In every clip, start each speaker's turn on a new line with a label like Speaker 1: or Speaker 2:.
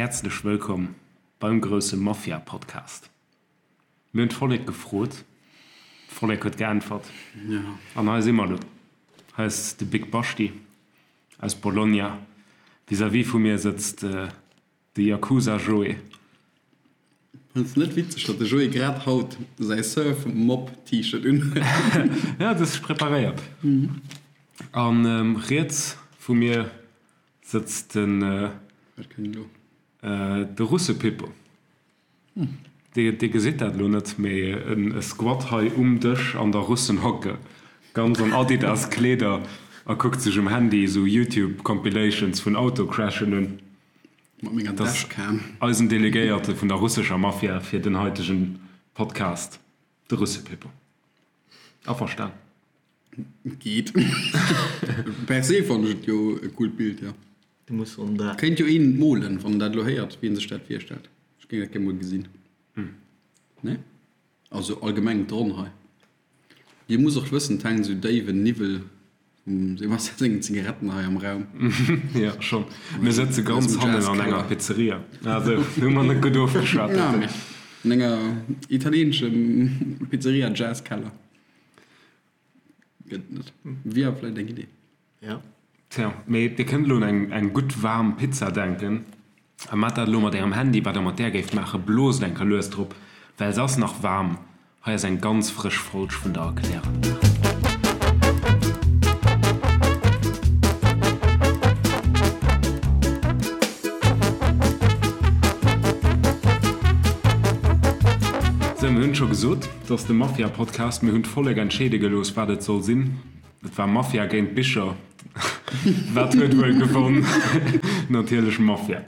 Speaker 1: Häerzlech wëllkomm beim grousse Mafia-Podcast. Mir hunn d'Vollek gefrot, d'Vollek huet geäntwert an hei si mer elo. Hei ass de Big Bashti aus Bologna, vis-à-vis vu mir sëtzt de Yakuza Joé.
Speaker 2: Fënns de net witzeg, datt de Joé grad haut säi Surf Mob T-Shirt un huet?
Speaker 1: Ja, et ass preparéiert. An riets vu mir sëtzt den.
Speaker 2: Wat kënnt elo?
Speaker 1: De Russepippo. Dir gesitt dat elo net, mee e squat hei um Dësch an der Russenhocke, ganz an Adidas-Kleeder a kuckt sech um Handy esou Youtube-Compilations vun Autocrashen un.
Speaker 2: Mat menger Dashcam.
Speaker 1: Eisen Delegéierte vun der russescher Mafia fir den haitegen Podcast, de Russepippo. Averstan?
Speaker 2: Geet. Per se fannen ech et jo e coolt Bild, jo.
Speaker 3: Du muss on dat.
Speaker 2: Kéint jo een molen, wann en dat elo héiert, wéi en sech dat virstellt. Ech géing dat gär mol gesinn. Nee? Also allgemeng d'Ronn hei. Dir musst och wëssen, et hänkt esou déiwen Niwwel vum Sebastian sengen Zigaretten hei am Raum.
Speaker 1: Jo, schonn. Mir sëtze ganz hannen an enger Pizzeria. Also, hu mer net gutt ofgeschwat.
Speaker 2: Ja, mee an enger italieenesche Pizzeria Jazzkeller. Gëtt net. Wier vläicht eng Idee.
Speaker 3: Ja.
Speaker 1: Tja, mee dir kënnt elo un eng eng gutt waarm Pizza denken a maacht dat elo mat ärem Handy. Wat der mat där géift maachen, bloost eng Kéier lues drop, well se ass nach waarm. Hei ass eng ganz frësch Folg vun der Erkläranlag. Sou, mir hunn et scho gesot, et ass de Mafia-Podcast. Mir hunn d'Vollek entscheede gelooss, wat et soll sinn. Et war Mafia géint Bicher. Wat huet wuel gewonn? Natierlech Mafia.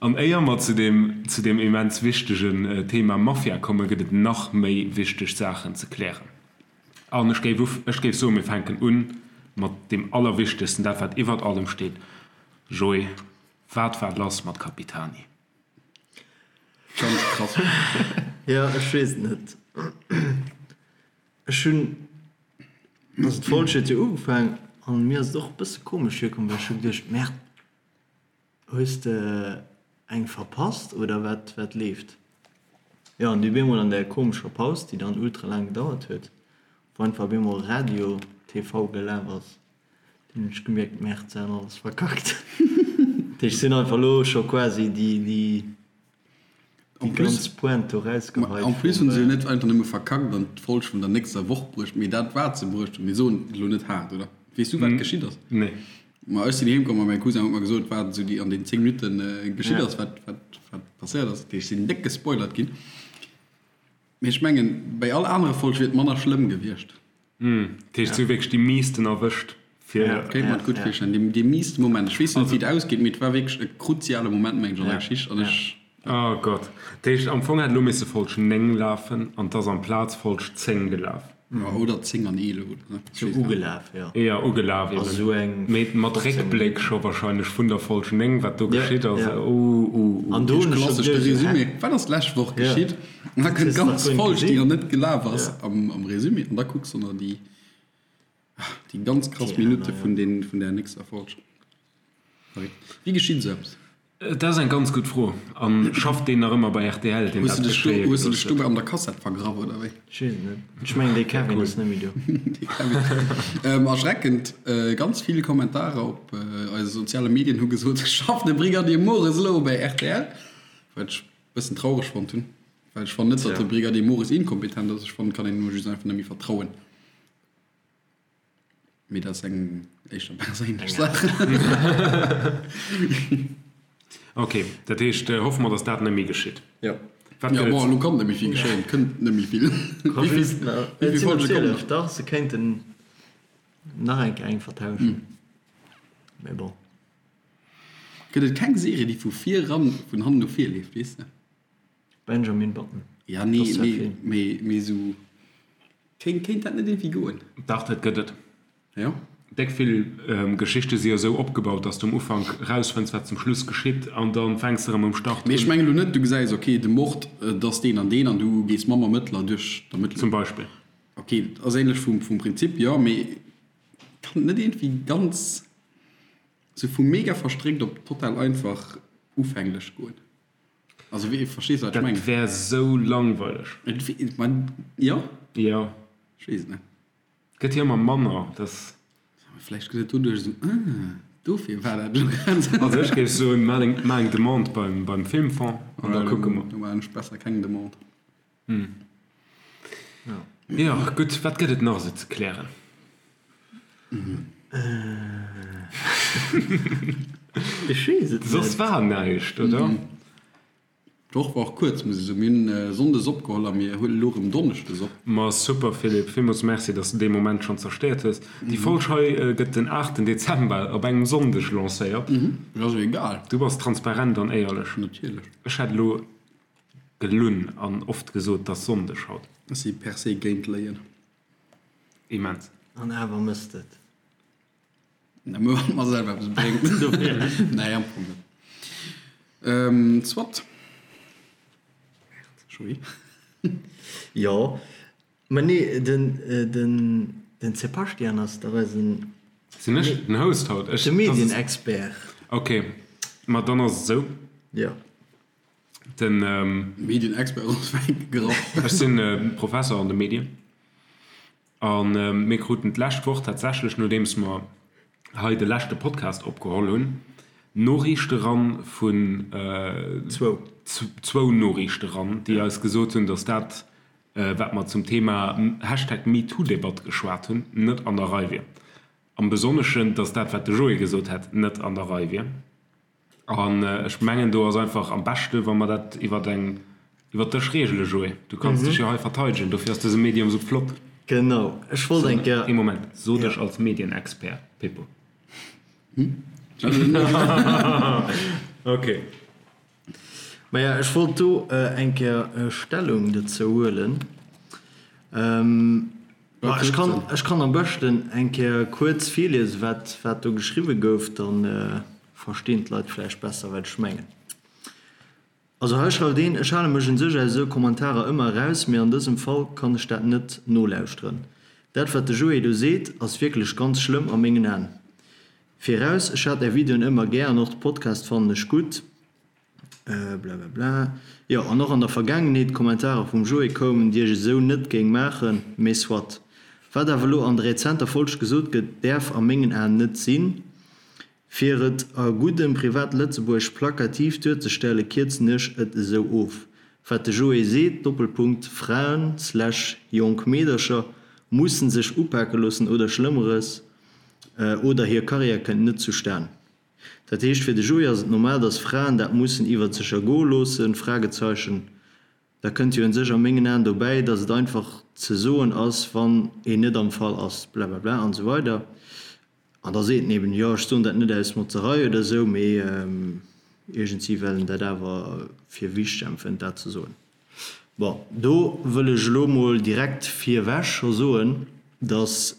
Speaker 1: An éier mer zu deem, zu deem immens wichtegen Thema Mafia kommen, gëtt et nach méi wichteg Saachen ze klären. An ech géif uf, ech géif soen, mir fänken u mat deem Allerwichtegsten, dat wat iwwert allem steet. Joé, wat war lass mat Capitani?
Speaker 2: Ganz krass.
Speaker 3: Jo, ech weess et net. Ech hunn, also d'Folg huet jo ugefaang an mir ass et och e bësse komesch virkomm, well ech hu geduecht, Merde, hues de eng verpasst oder wat, wat leeft? Jo, an du bemol an där komescher Paus, déi dann ultra laang gedauert huet, wou einfach bemol Radio TV gelaf ass, dunn hunn ech gemierkt, Merde, se han alles verkackt. Dat heescht, se hunn einfach elo scho quasi déi, déi.
Speaker 2: En
Speaker 3: Déi
Speaker 2: plus,
Speaker 3: ganz Pointe do rausgeheit
Speaker 2: en plus
Speaker 3: vum.
Speaker 2: hunn se jo net einfach nëmme verkackt an d'Folg vun der nächster Woch bruecht, mee dat wat se bruecht hunn, mir soen et elo net haart, oder? Weess du wat geschitt ass?
Speaker 1: Nee.
Speaker 2: Ma ech sinn heem komm a mäi Cousin huet mer gesot wat esou déi an den 10 Minutten geschitt
Speaker 3: Ja.
Speaker 2: ass, wat wat wat passéiert ass. Dat heescht, ech sinn déck gespoilert ginn. Mee ech mengen, bei all anere Folg wier et manner schlëmm gewiescht.
Speaker 1: Dat heescht, se hu wierklech déi miisten erwëscht fir.
Speaker 2: Kéint mer et gutt virstellen. Dee, dee miisten Moment. Ech weess net, wéi et ausgeet, mee et war wierklech e kruziale Moment, mengen ech, an der Geschicht. An ech.
Speaker 1: Oh Gott. Dat heescht, am Fong hätt elo misse Folg 9 lafen an 't ass amplaz Folg 10 gelaf.
Speaker 2: Ja, oder 10 an 11 oder sou.
Speaker 3: Sou ugelaf, jo.
Speaker 1: Jo, ugelaf eben.
Speaker 3: Also sou eng
Speaker 1: Mee mat
Speaker 3: 15
Speaker 1: Réckbléck
Speaker 3: Minutten.
Speaker 1: scho wahrscheinlech vun der Folg 9, wat do
Speaker 3: Ja,
Speaker 1: geschitt ass.
Speaker 3: ja.
Speaker 1: Uh, uh, uh.
Speaker 3: An do hunn ech scho
Speaker 2: Klassesch de
Speaker 3: geduecht, sou, hä?
Speaker 2: Résumé. Wat ass d'lescht Woch
Speaker 3: Ja.
Speaker 2: geschitt? An da
Speaker 3: Dat
Speaker 2: kënnt
Speaker 3: hues de nach
Speaker 2: d'ganz
Speaker 3: guer net
Speaker 2: Folg, déi
Speaker 3: gesinn.
Speaker 2: nach net gelaf ass,
Speaker 3: Ja.
Speaker 2: am, am Résumé. An da kucks de nach déi, déi ganz krass
Speaker 3: Déi aner,
Speaker 2: Minutte
Speaker 3: ja.
Speaker 2: vun den, vun där nächster Folg. Verréckt. Wéi geschitt esou eppes?
Speaker 1: Dat ass eng ganz gutt Fro. A schafft deen nach ëmmer bei rtl, deen
Speaker 2: Hues
Speaker 1: dat
Speaker 2: du dech do,
Speaker 1: geschéie
Speaker 2: hues du
Speaker 1: gelooss
Speaker 2: dech
Speaker 1: huet?
Speaker 2: dobäi an der Kassett vergraff, oder wéi?
Speaker 3: Ech weess et net. Ech mengen, dee Kevin ass net méi do.
Speaker 2: Dee Kevin. Erschreckend, ganz vill Kommentarer op eise soziale Medien hu gesot, Schafft de Brigadier Mores elo bei rtl? Wat ech e bëssen traureg fonnt hunn, well ech fannen net, datt de Brigadier Mores inkompetent ass. Ech fannen, et kann een him just einfach net méi vertrauen. Mee dat ass eng éischter perséinlech Saach.
Speaker 1: Ok, dat heescht, hoffe mer, datt dat net méi geschitt.
Speaker 2: Jo.
Speaker 1: Wat
Speaker 2: Jo,
Speaker 1: gëtt
Speaker 2: bon,
Speaker 1: et?
Speaker 2: elo kann net méi vill geschéien. Et kënnt net méi vill. Wéi vill, wéi
Speaker 3: Et
Speaker 2: vill
Speaker 3: sinn der
Speaker 2: Folge kommen
Speaker 3: 12,
Speaker 2: nach?
Speaker 3: dach, se kéinten nach eng Kéier eng vertauschen. Mee bon.
Speaker 2: Gëtt et keng Serie, déi vu vir eran, vun hannen no vir leeft, weess de?
Speaker 3: Benjamin Button.
Speaker 2: Ja, nee,
Speaker 3: Das ist
Speaker 2: nee,
Speaker 3: Film.
Speaker 2: mee, mee sou, kéint, kéint dat net iergendwéi goen?
Speaker 1: Dach, dat gëtt et.
Speaker 2: Jo?
Speaker 1: Déck vill Geschichte si jo sou opgebaut, dass du um Ufank rausfënns, wat zum Schluss geschitt, an da fänks de erëm um Start
Speaker 2: Mee ech
Speaker 1: un.
Speaker 2: mengen elo net, du gesäis, ok, de Mord, et ass deen an deen, an du gees mam Ermëttler duerch d'Ermëttlung.
Speaker 1: Zum Beispill.
Speaker 2: Ok, dat ass ähnlech vum, vum Prinzip, jo, mee kann et net iergendwéi ganz, sou vu mega verstréckt op total einfach. ufänglech goen. Also wéi, verstees du wat ech mengen?
Speaker 1: Dat wär sou langweileg.
Speaker 2: Et wi, ma jo?
Speaker 1: Jo.
Speaker 2: Ech weess et net.
Speaker 1: Gëtt jo ëmmer manner, dass.
Speaker 2: Vläicht gëtt et doduerch esou, ah, dofir war dat elo grad esou.
Speaker 1: Also ech géif soen, maach eng, maach eng Demande beim, beim Filmfonds an da kucke mer.
Speaker 2: Do maachen ech besser keng Demande.
Speaker 1: Jo, gutt, wat gëtt et nach esou ze klären?
Speaker 3: Ech weess et net.
Speaker 1: Soss war näischt, oder?
Speaker 2: D'Woch war och kuerz, muss ech soen. Mir hunn sonndes opgeholl a mir huelen elo erëm donneschdes op.
Speaker 1: Ma super Philippe, villmools Merci, dass de dee Moment schonn zerstéiert hues. Déi Folg hei gëtt den 8 Dezember op engem Sonndeg lancéiert.
Speaker 2: Et ass jo egal.
Speaker 1: Du bass transparent an éierlech.
Speaker 2: Natierlech.
Speaker 1: Ech hätt elo gelunn an oft gesot, 't ass Sonndeg haut.
Speaker 2: Ech si per se géint Léien.
Speaker 1: Immens.
Speaker 3: An awer mësst et.
Speaker 2: Nëmme wann et mer selwer eppes bréngt. Nee, am Fong net. Soit. Joé?
Speaker 3: Jo, mä nee, den, den, den Sebastian ass dach eisen.
Speaker 1: Sinn ech den Host haut?
Speaker 3: Ech, de Medienexpert.
Speaker 1: Ok, ma dann ass et esou.
Speaker 3: Jo.
Speaker 1: Den.
Speaker 2: Medienexpert ass wäit gegraff.
Speaker 1: Ech sinn Professer an de Medien. A mir kruten d'lescht Woch tatsächlech, nodeems mer hei de leschte Podcast opgeholl hunn, Noriichte ran vun, zwou Noriichte ran, déi eis gesot hunn, datt dat, wat mer zum Thema Hashtag MeToo-Debatt geschwat hunn, net an der Rei wier. Am Besonneschen, datt dat, wat de Joé gesot hätt, net an der Rei wier. An ech mengen, do ass einfach am beschte wa mer dat iwwer eng, iwwer dech regele, Joé. Du kanns dech jo hei verteidegen, dofir ass dëse Medium esou flott.
Speaker 3: Genau, ech wollt eng Kéier.
Speaker 1: Ee Moment, so dech als Medienexpert, Pippo. Ok.
Speaker 3: Maja, ech wollt do eng Kéier Stellung dozou huelen. Ma ech kann, ech kann am beschten eng Kéier kuerz virliesen, wat, wat do geschriwwe gouf, dann verstinn d'Leit vläicht besser, wat ech mengen. Also hei schreift een, Ech hale mech un sech aus esou Kommentarer ëmmer eraus, mee an dësem Fall kann ech dat net nolauschteren. Dat wat de Joé do seet, ass wierklech ganz schlëmm a mengen Aen. Viraus, ech hat är Videoen ëmmer gär an och de Podcast fannen ech gutt. Blablabla. Jo, an och an der Vergaangenheet Kommentarer vum Joé koumen, déi ech esou net géing maachen, mee soit. Wat awer elo an der rezenter Folg gesot gëtt, däerf a mengen Aen net sinn. Fir et a guddem Privat-Lëtzebuergesch plakativ duerzestellen, kierzen ech et esou of, Wat de Joé seet, Doppelpunkt, Fraen slash jonk Meedercher mussen sech upake loossen oder Schlëmmeres, oder hir Karriär kënnt net zustan. Dat heescht, fir de Joé ass et normal, dass Fraen dat mussen iwwert sech ergoe loossen? Fragezeichen. Da kënnt jo un sech a mengen Aen dobäi, dass et einfach ze soen ass, wann een net am Fall ass, blablabla an esou weider. An da seet en eben, jo, ech soen dat net aus Motzerei oder esou, mee iergendwéi well en dat awer fir wichteg empfënnt, dat ze soen. Bon, do wëll ech elo mol direkt virwech scho soen, dass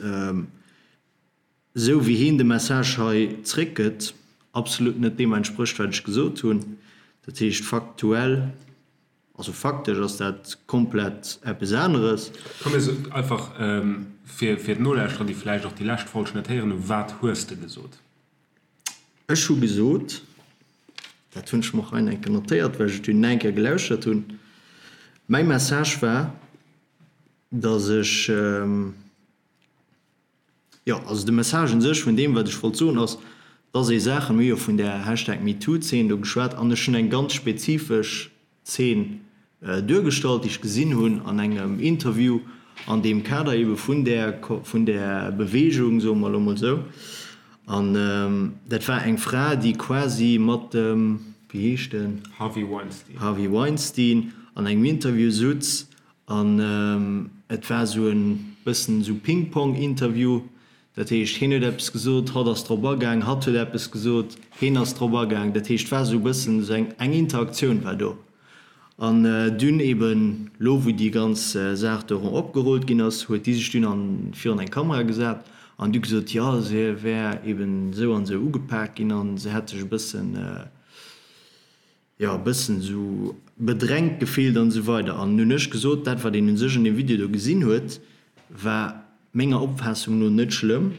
Speaker 3: esou wéi heen de Message hei zréckgëtt, absolut net deem entsprécht, wat ech gesot hunn. Dat heescht, faktuell, also faktesch ass dat komplett eppes aneres.
Speaker 1: Komm mir soen einfach, fir d'Nolauschterer, déi vläicht och déi lescht Folg net héieren hunn, Wat hues de gesot?
Speaker 3: Ech hu gesot, dat hunn ech mer och hei eng Kéier notéiert, well ech et dunn nach eng Kéier gelauschert hunn, mäi Message war, datt ech, Jo, also de Message un sech vun deem, wat ech wollt soen, ass, dass ee Saachen, mir hu jo vun där Hashtag MeToo-Zeen do geschwat, an ech hunn eng ganz spezifesch Zeen duergestallt, déi ech gesinn hunn an engem Interview an deem Kader eebe vun där, vun där Beweegung, soe mer elo mol esou. An dat war eng Fra, déi quasi mat dem, wéi heescht en?
Speaker 1: Harvey Weinstein.
Speaker 3: Harvey Weinstein an engem Interview sutz An et war esou e bëssen esou Ping-Pong-Interview. Dat heescht, hien huet eppes gesot, hatt ass drop agaang, hatt huet eppes gesot, hien ass drop agaang. Dat heescht, et war esou e bëssen esou eng, eng Interaktioun war do. An dunn eben, lo wou déi ganz Saach do erëm opgerullt ginn ass, huet déi sech dunn an, virun eng Kamera gesat an du gesot, jo, se wär eben esou an esou ugepak ginn an se hätt sech e bëssen, jo, e bëssen esou bedrängt gefillt an esou weider. An hunn ech gesot, dat wat een u sech an deem Video do gesinn huet, war menger Opfaassung no net schlëmm.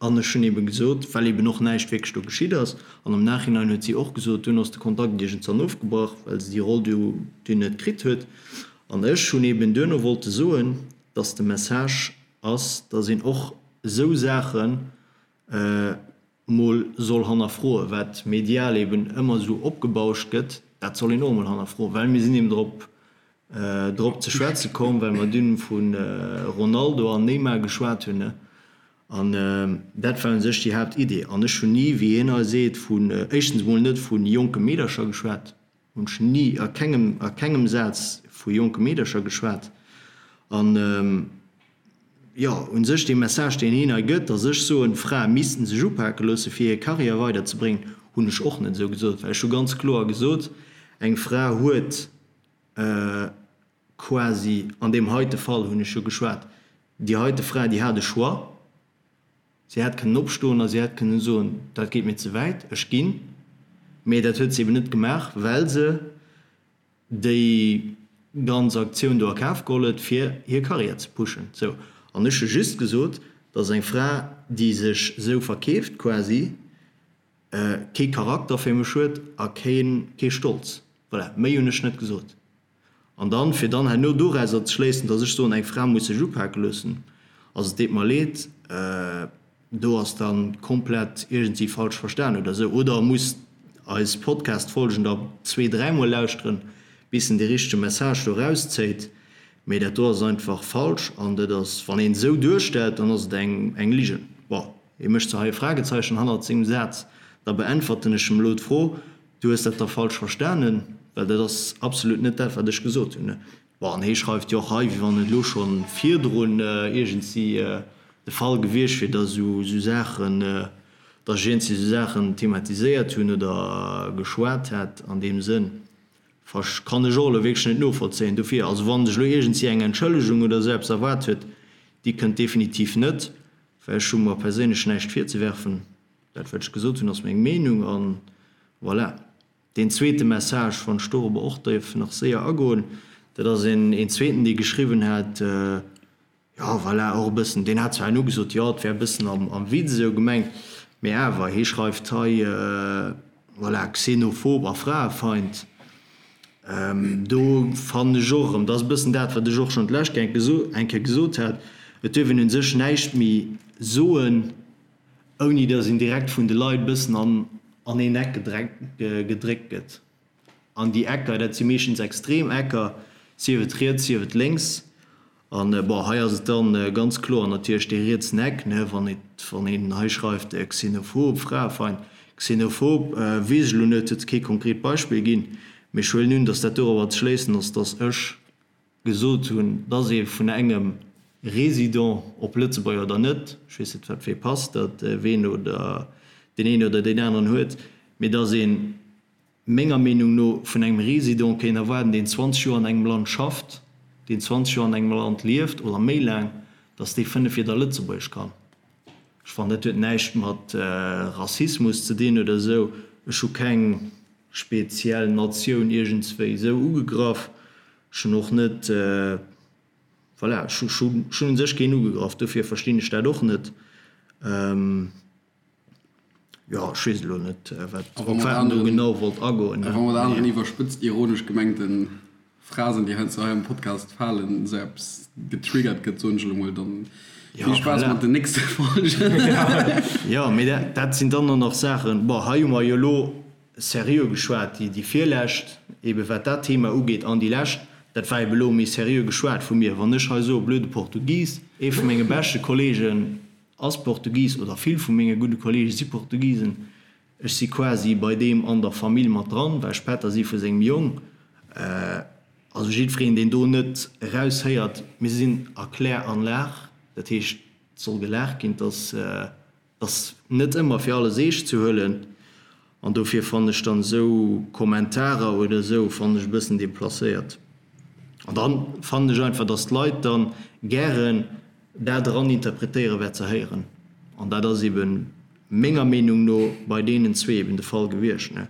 Speaker 3: An ech hunn eebe gesot, well eeben och näischt wierklech do geschitt ass, an am Nachhinein huet si och gesot, dunn ass de Kontakt iergendzwann ofgebrach, well se déi Roll du dunn net kritt huet. An ech hunn eeben duerno wollte soen, dass de Message ass, dass een och esou Saachen mol soll hannerfroen, wat medial eeben ëmmer esou opgebauscht gëtt, dat soll een och emol hannerfroen, well mir sinn eeben drop drop ze schwätze komm, well mer dunn vu Ronaldo an Neymar geschwat hunn. An dat war u sech déi Haaptidee. An ech hunn ni, wéi hien hei seet, vun, éischtens emol net vu jonke Meedercher geschwat, hunn ech ni a kengem, a kengem Saz vu jonke Meedercher geschwat. An, jo, u sech dee Message, deen hien hei gëtt, datt ech soen, Frae missten sech upake loosse fir hir Karriär weiderzebréngen, hunn ech och net esou gesot, well ech hu ganz kloer gesot, eng Fra huet, quasi, an deem heite Fall hunn ech jo geschwat, déi heite Fra, déi hat e Choix, si hätt kënnen opstoen a si hätt kënnen soen, dat geet mir ze wäit, ech ginn. Mee dat huet se eben net gemaach, well se déi ganz Aktioun do a Kaf geholl huet, fir hir Karriär ze pushen. Sou. An ech hu just gesot, dass eng Fra, déi sech esou verkeeft quasi, kee Charakter fir mech huet a kee Stolz. Voilà, méi hunn ech net gesot. An dann, fir dann herno dorauser ze schléissen, dass ech soen, eng Fra muss sech upake loossen, also et deet mer leed, do ass da komplett iergendwéi falsch verstan oder esou. Oder e muss eis Podcast-Folgen da zwee-, dräimol lauschteren, bis en dee richtege Message do erauszéit. Mee dat do ass einfach falsch an dat ass, wann een esou duerstellt, dann ass et eng Ligen. Bon, hie mécht zwar hei e Fragezeichen hannert sengem Saz, da beäntwerten ech em elo d'Fro, Du hues dat da falsch verstanen, well dat ass absolut net dat, wat ech gesot hunn. Bon, an hie schreift jo och hei, wéi wann et elo scho virdrun iergendwéi de Fall gewiescht wier, datt esou Saachen, datt ech iergendwéi esou Saachen thematiséiert hunn oder geschwat hätt an deem Sënn. Versch kann ech och elo wierklech net novollzéien. Dofir, also wann sech elo iergendwéi eng Entschëllegung oder esou eppes erwaart huet, déi kënnt definitiv net, well ech hu mer perséinlech näischt virzewerfen. Dat wat ech gesot hunn ass meng Meenung an voilà. Deen zweete Message, wann ech dorobber och dierf nach séier agoen, dat ass een een zweeten dee geschriwwen hat, jo voilà, och e bëssen, deen hat zwar herno gesot, jo et wär e bëssen am am Witz esou gemengt, mee awer, hie schreift hei, voilà, xenophob a Fraefeind. Do fannen ech och erëm, dat ass e bëssen dat wat ech och schonn d'lescht eng Kéier gesot hat, et duerf een u sech näischt méi soen, ouni datt een direkt vun de Leit bëssen an an een Eck gedréckt gëtt. An déi Ecker, dat si meeschtens extrem Ecker, sief et riets, sief et lénks. An bon, hei ass et dann ganz kloer natierlech dee rietsen Eck, ne, wann et, wann een hei schreift xenophob, Fraefeind. Xenophob weess ech elo net, huet kee konkret Beispill ginn, mee ech huelen un, datt dat dorobber ze schléissen ass, datt ech gesot hunn, dass ee vun engem Résident, ob Lëtzebuerger oder net, ech weess net wat fir ee Pass dat ween oder deen een oder deen aneren huet, mee dass ee menger Meenung no vun engem Résident kéint erwaarden, deen 20 Joer an engem Land schafft, deen 20 Joer an engem Land lieft oder méi laang, dass dee 5 Wieder Lëtzebuergesch kann. Ech fannen, dat huet näischt mat Rassismus ze dinn oder esou. Ech hu keng speziell Natioun iergendswéi esou ugegraff. Ech hunn och net, voilà, ech hunn u sech keen ugegraff, dofir verstinn ech dat och net. Jo, ech weess elo net, wat, op wat en do genau wollt agoen.
Speaker 2: A wa mat aneren iwwerspëtzt ironesch gemengte Phrasen, déi heiansdo hei am Podcast falen, esou eppes getriggert gëtt, soen ech elo mol, dann vill Spaass mat den nächste Folgen.
Speaker 3: Jo, mee dat sinn dann och nach Saachen, bon, hei hu mer jo elo seriö geschwat, déi, déi virlescht, ebe wat dat Thema ugeet, an déi lescht, dat war ebe elo méi seriö geschwat vu mir. Wann ech hei soe blöde Portugis, ee vu menge beschte Kollegen ass Portugis, oder vill vu menge gudde Kollege si Portugisen, ech si quasi bei deem an der Famill mat dran, well ech Pätter si vu sengem Jong, also jiddwereen, deen do net eraushéiert, mir sinn a Kläranlag, dat heescht, et soll gelaacht ginn, dass. Ass net ëmmer fir alles eescht ze huelen an dofir fannen ech dann esou Kommentarer oder esou fannen ech e bëssen deplacéiert. An dann fannen ech einfach dass d'Leit dann gären dat eran interpretéieren wat se héieren an dat ass eben menger Meenung no bei deenen zwee eben de Fall gewiescht ne.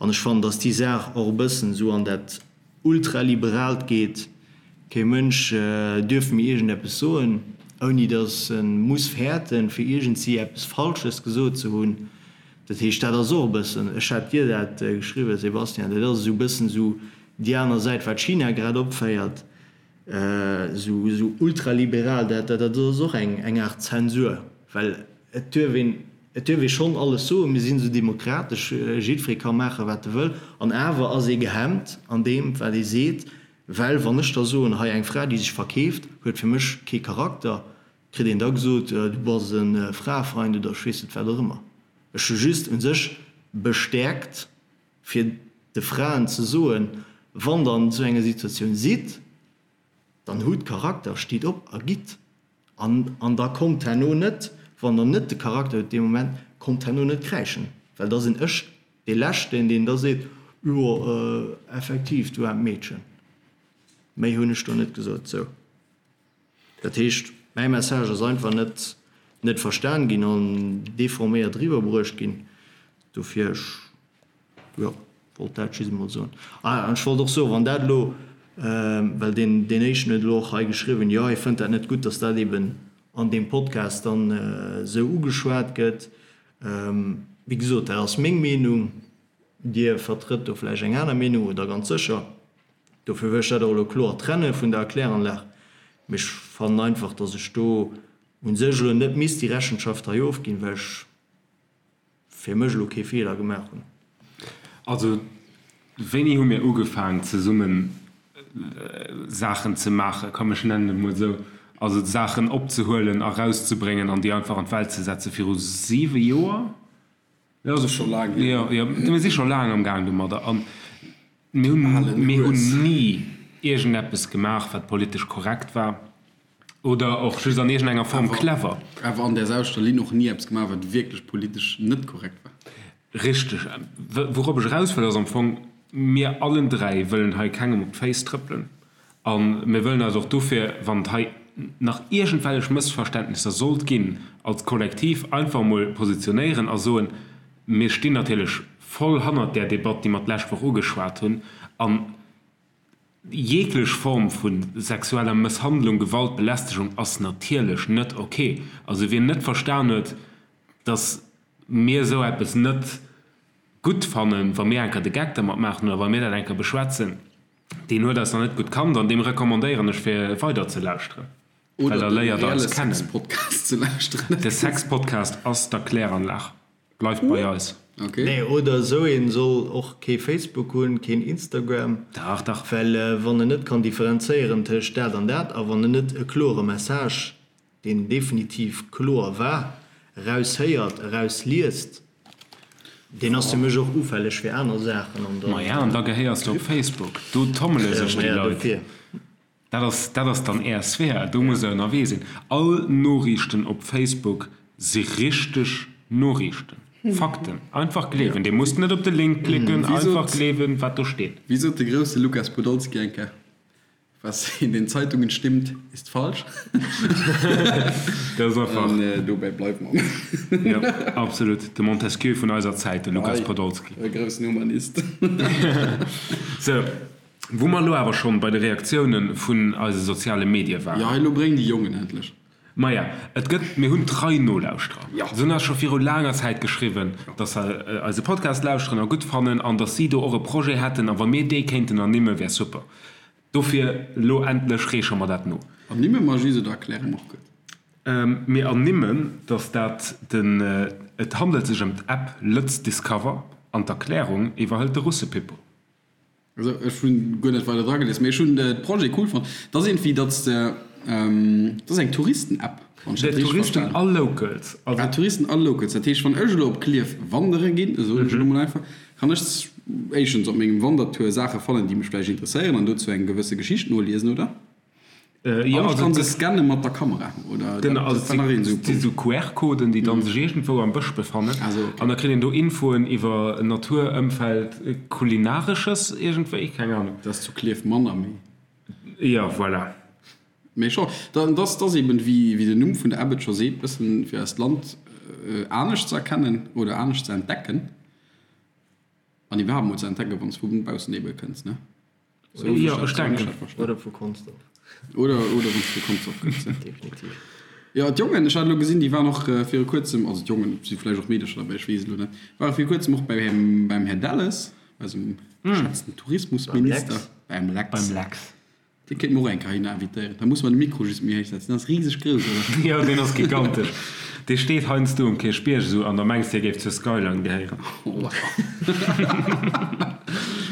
Speaker 3: An ech fannen dass déi Saach och e bëssen esou an dat ultraliberaalt geet, kee Mënsch duerf méi iergendeppes soen. Ouni datt e muss fäerten, fir iergendsi eppes Falsches gesot ze hunn. Dat heescht, dat ass och e bëssen, ech hat dir dat geschriwwen, Sebastian, dat ass esou e bëssen esou déi aner Säit, wat China grad opféiert, esou esou ultraliberal, dat dat ass och eng eng Aart Zensur, well et duerf een, et duerf ee schonn alles soen, mir sinn esou demokratesch, jiddweree ka maachen, wat e wëll, an awer ass ee gehemmt an deem, wat ee seet, well wann ech da soen, hei eng Fra, déi sech verkeeft, huet fir mech kee Charakter, Kritt een da gesot, du bass e Fraefeind oder ech weess net wat och ëmmer. Ech hu just u sech bestäerkt, fir de Fraen ze soen, wann der an esou enger Situatioun sidd, dann hutt Charakter, stitt op a gitt. An an da kommt herno net, wann der net de Charakter hutt dee Moment, kommt herno net kräischen, well da sinn ech dee Leschten, deen da seet, jo effektiv, du aarmt Meedchen. Méi hunn ech do net gesot. Sou. Dat heescht, mäi Message ass einfach net net verstan ginn an deforméiert eriwwerbruecht ginn. Dofir, ech, jo, wollt dat just emol soen. Ah, an ech wollt och soen, wann dat elo, well deen deen éischten huet elo och hei geschriwwen, jo, hie fënnt dat net gutt, datt dat eben an deem Podcast dann esou ugeschwat gëtt. Wéi gesot, dat ass meng Meenung. Dir vertrëtt do vläicht eng aner Meenung oder ganz sécher. Dofir wëll ech dat och elo kloer trenne vun der Erkläranlag. Mee ech fannen einfach, datt ech do u sech elo net misst déi Rechenschaft hei ofginn, well ech fir mech elo kee Feeler gemaach hunn.
Speaker 1: Also, wéini hu mir ugefaang zesummen Saachen ze maachen, komm ech nennen et mol esou, also Saachen opzehuelen a rauszebréngen an déi einfach an d'Welt ze setzen? Viru siwe Joer?
Speaker 2: Jo, ass scho laang
Speaker 1: hier. Jo, jo, mir si scho laang am Gaang domadder an mir hunn, mir hunn ni iergendeppes gemaach, wat politesch korrekt war oder och just an iergendenger Form clever.
Speaker 2: Awer an där selwechter Linn och ni eppes gemaach, wat wierklech politesch net korrekt war.
Speaker 1: Richteg. Wourop ech eraus wëll, ass am Fong, mir allen dräi wëllen hei kengem op d'Féiss trëppelen. A mir wëllen eis och dofir, wann et hei nach iergendwellech Mëssverständnisser sollt ginn, als Kollektiv einfach emol positionéieren a soen, Mir stinn natierlech voll hannert där Debatt, déi mer d'lescht Woch ugeschwat hunn. A jeeglech Form vu sexueller Mësshandlung, Gewalt, Belästegung ass natierlech net ok. Also wien net verstan huet, dass mir esou eppes net gutt fannen, wa mir enker de Geck dermat maachen oder wa mir dat enker beschwätzen, Deen huet eis nach net gutt kannt an deem recommandéieren ech fir weider ze lauschteren, well
Speaker 2: da
Speaker 1: léiert
Speaker 2: er eis kennen. Sexpodcast ze
Speaker 1: lauschteren. De Sexpodcast ass d'Erkläranlag. Bleift bei eis.
Speaker 3: Okay. Nee, oder esou een soll och kee Facebook hunn, keen Instagram.
Speaker 1: Dach, dach.
Speaker 3: Well wann en net kann differenzéieren tëscht dat an dat a wann en net e klore Message deen definitiv kloer war, eraus héiert, eraus liest, deen ass fir mech och ufälleg fir aner Saachen
Speaker 1: an dann. Maja, an da gehéiers de op Facebook, do tommele sech déi Leit. Dat ass, dat ass dann Är Sphär, do musst Der ënnerwee sinn. All Noriichten op Facebook si richteg Noriichten, Fakten. Einfach gleewen. Dir musst net op de Link klicken, einfach gleewen, wat do steet.
Speaker 2: Wéi sot de grousse Lukas Podolski eng Kéier? Was in den Zeitungen stimmt, ist falsch.
Speaker 1: Dat ass einfach.
Speaker 2: An dobäi bleiwe mer.
Speaker 1: Jo, absolut. De Montesquieu vun eiser Zäit, de Lukas Podolski.
Speaker 2: E groussen Humanist.
Speaker 1: Sou, wou mer elo awer schonn bei de Reaktioune vun eise soziale Medie waren.
Speaker 2: Jo, elo bréng déi Jongen endlech.
Speaker 1: Maja, et gëtt, mir hunn trei Nolauschterer.
Speaker 2: Jo.
Speaker 1: Se hunn eis scho viru laanger Zäit geschriwwen, dass se eise Podcast lauschteren a gutt fannen an dass si do och e Projet hätten a wa mir dee kéinten ernimmen, wär super. Dofir elo endlech reeche mer dat no.
Speaker 2: Ernimme mer just oder erkläre mer och gutt?
Speaker 1: Mir ernimmen, dass dat den, et handelt sech ëm d'App Lëtz Discover an d'Erklärung iwwerhëlt de Russepippo.
Speaker 2: Also ech hunn guer net weider dra gelies, mee ech hunn de Projet cool fonnt. Dat ass iergendwéi, datt s de, dat ass eng Touristen-App,
Speaker 1: wann ech dat richteg
Speaker 2: Touristen
Speaker 1: a Locals.
Speaker 2: Also. Ah, Touristen a Locals. Dat heescht, wann ech elo op Klierf wandere ginn, soen ech elo mol einfach, kann ech éischtens op mengem Wandertour Saache fannen, déi mech vläicht interesséieren an dozou eng gewësse Geschicht noliesen, oder?
Speaker 1: Jo,
Speaker 2: also kann se scanne mat der Kamera, oder?
Speaker 1: Genau, also et si sou QR-Coden, déi dann sech iergendwou am Bësch befannen. An da kritt een do Infoen iwwer Natur, Ëmfeld, Kulinaresches iergendwéi, keng Ahnung.
Speaker 2: Dat ass zu Klierf manner, mee.
Speaker 1: Jo, voilà.
Speaker 2: Mee scho, dat ass eben, wéi den Numm vun der App et scho seet, bëssen fir eist Land anescht ze erkennen oder anescht ze entdecken an iwwerhaapt mol ze entdecken, wann s vu baussen ebe kënns, ne?
Speaker 1: Jo, ech denken.
Speaker 3: Oder vu Consdorf.
Speaker 2: Oder, oder wann s vu Consdorf kënns, ja.
Speaker 3: Definitiv.
Speaker 2: Jo, d'Jongen, ech hat elo gesinn, déi waren och viru kuerzem, also d'Jongen, et si vläicht och Meedercher derbäi, ech weess et elo net, ware viru kuerzem och beim, beim Här Delles, eisem geschätzten Tourismusminister. Beim Lex.
Speaker 1: Beim Lex.
Speaker 2: Dee kéinte mer och eng Kéier heihinner invitéieren. Da musse mer de Mikro just méi héich setzen. Deen ass riseg grouss, oder?
Speaker 1: Jo, deen ass gigantesch. Dee steet heiansdo um Kierchbierg esou an da mengs de, hie géif zur Skyline gehéieren.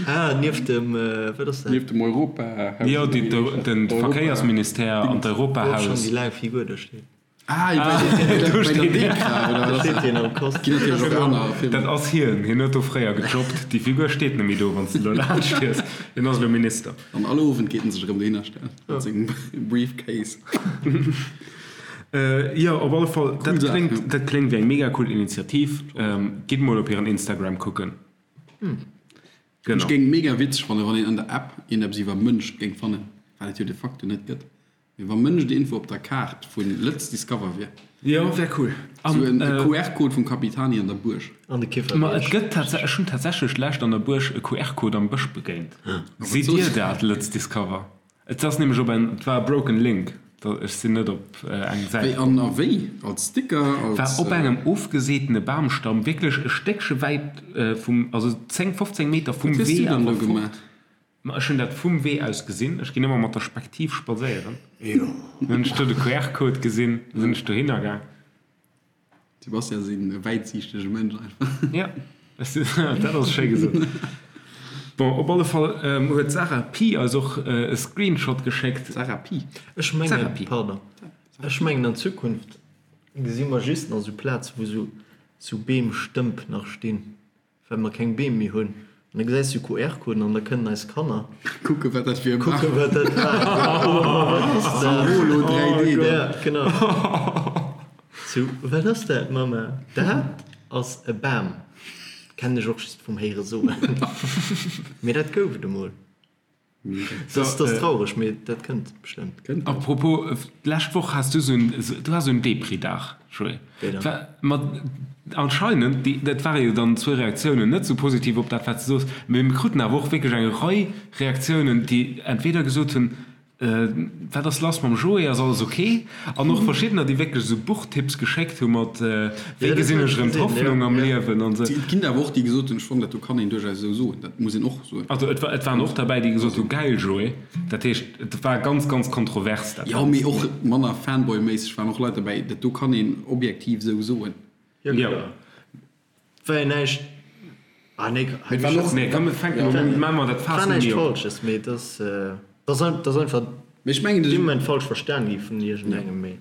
Speaker 3: Ah, nieft dem, wat ass dat?
Speaker 2: Nieft dem Europahaus.
Speaker 1: Jo, de Verkéiersministère an d'Europahaus.
Speaker 3: Wou och schonn déi laang Figur do steet.
Speaker 2: Ah, do steet hien.
Speaker 3: Do steet hien am Kostüm.
Speaker 2: Ginn natierlech och aner Firmen.
Speaker 1: Dat ass hien. Hien huet do fréier gejobbt. Déi Figur steet net méi do, wann s de elo laanscht fiers. Hien ass elo Minister.
Speaker 2: An all Owend geet en sech erëm dohinner stellen mat sengem Briefcase.
Speaker 1: Jo, op alle Fall, dat kléngt, dat kléngt wéi eng mega cool Initiativ. Gitt mol op hiren Instagram kucken.
Speaker 2: Ech géing et mega witzeg fannen, wann een an der App iergendeppes iwwer Mënsch géing fannen, wat et jo de facto net gëtt. Mee wa Mënsch déi Info op der Kaart vu Lëtz Discover wier.
Speaker 1: Jo, wär cool.
Speaker 2: Sou en QR-Code vum Capitani an der Buerg.
Speaker 3: An de
Speaker 1: Ma et
Speaker 3: Kifferbierg.
Speaker 1: gëtt tats, ech hunn tatsächlech d'lescht an der Buerg e QR-Code am Bësch begéint. Sidd Dir dat, Lëtz Discover? Et ass nämlech op en, et war e broken link, da ech sinn net op eng Säit
Speaker 2: Wéi
Speaker 1: komm.
Speaker 2: an a wéi? Als Sticker?
Speaker 1: War
Speaker 2: Als.
Speaker 1: op engem ofgeseetene Bamstamm, wierklech e Stéckche wäit vum, also 10, 15 Meter vum
Speaker 2: Wat hues du
Speaker 1: Wee
Speaker 2: dann do
Speaker 1: awer fort.
Speaker 2: gemaach?
Speaker 1: Ma ech hunn dat vum Wee aus gesinn. Ech ginn ëmmer mat der Spektiv spadséieren. Dann hunn ech do de QR-Code gesinn, da sinn ech dohinner gaang.
Speaker 2: Sebastian ass een wäitsiichtege Mënsch einfach.
Speaker 1: Ja, dat ass schéi gesot. Bon, op alle Fall huet d'Sarah Pi eis och e Screenshot geschéckt.
Speaker 2: Sarah Pi?
Speaker 3: Ech mengen, pardon, ech mengen an Zukunft gesi mer just nach esou Plaze wou esou Beemstëmp nach stinn. Well mer keng Beem méi hunn. An da gesäis du QR-Coden an da kënnen eis Kanner.
Speaker 2: Kucken, wat dat fir e Bam.
Speaker 3: Kucken, wat dat war. Oh, wat ass dat?
Speaker 2: Holo 3D.
Speaker 3: Ja, genau. Sou, wat ass dat, Mamma? Dat ass e Bam. Kennen ech och just vum Héiere soen. Mee dat gouf et emol. Dat ass traureg, mee dat kënnt bestëmmt.
Speaker 1: A propos, d'lescht Woch has du sou en, du has sou en Depri-Dag, Joé.
Speaker 3: Wéi dann?
Speaker 1: Ma anscheinend, déi, dat ware jo dann zwou Reaktiounen, net sou positiv op dat, wat s de soos, mee mir kruten awer och wierklech eng Rei Reaktiounen, déi entweder gesot hunn, Wat ass lass mam Joé, ass alles ok? An och verschiddener, déi wierklech esou Buchtipps geschéckt hu mat, Wéi gesinn ech erëm d'Hoffnung am Liewen an esou.
Speaker 2: Et ginn awer och déi gesot hunn, ech fannen dat do kann een duerchaus esou soen, dat muss een och soen.
Speaker 1: Also et waren och derbäi, déi gesot hu, Gäil Joé. Dat heescht, et war ganz, ganz kontrovers dat
Speaker 2: Jo,
Speaker 1: Ganzt.
Speaker 2: mee och manner Fanboy-méisseg waren och Leit derbäi, dat do kann een objektiv esou soen.
Speaker 3: Jo, kloer. War jo näischt, ah nee,
Speaker 2: Mee et waren och.
Speaker 1: Nee, komm, fänken un, maache mer dat
Speaker 3: War
Speaker 1: Faass net
Speaker 3: näischt
Speaker 1: méi op.
Speaker 3: Falsches, mee et ass, et ass einfach
Speaker 2: Mee ech mengen,
Speaker 3: dee Moment falsch verstan gi vun iergendengem, mee.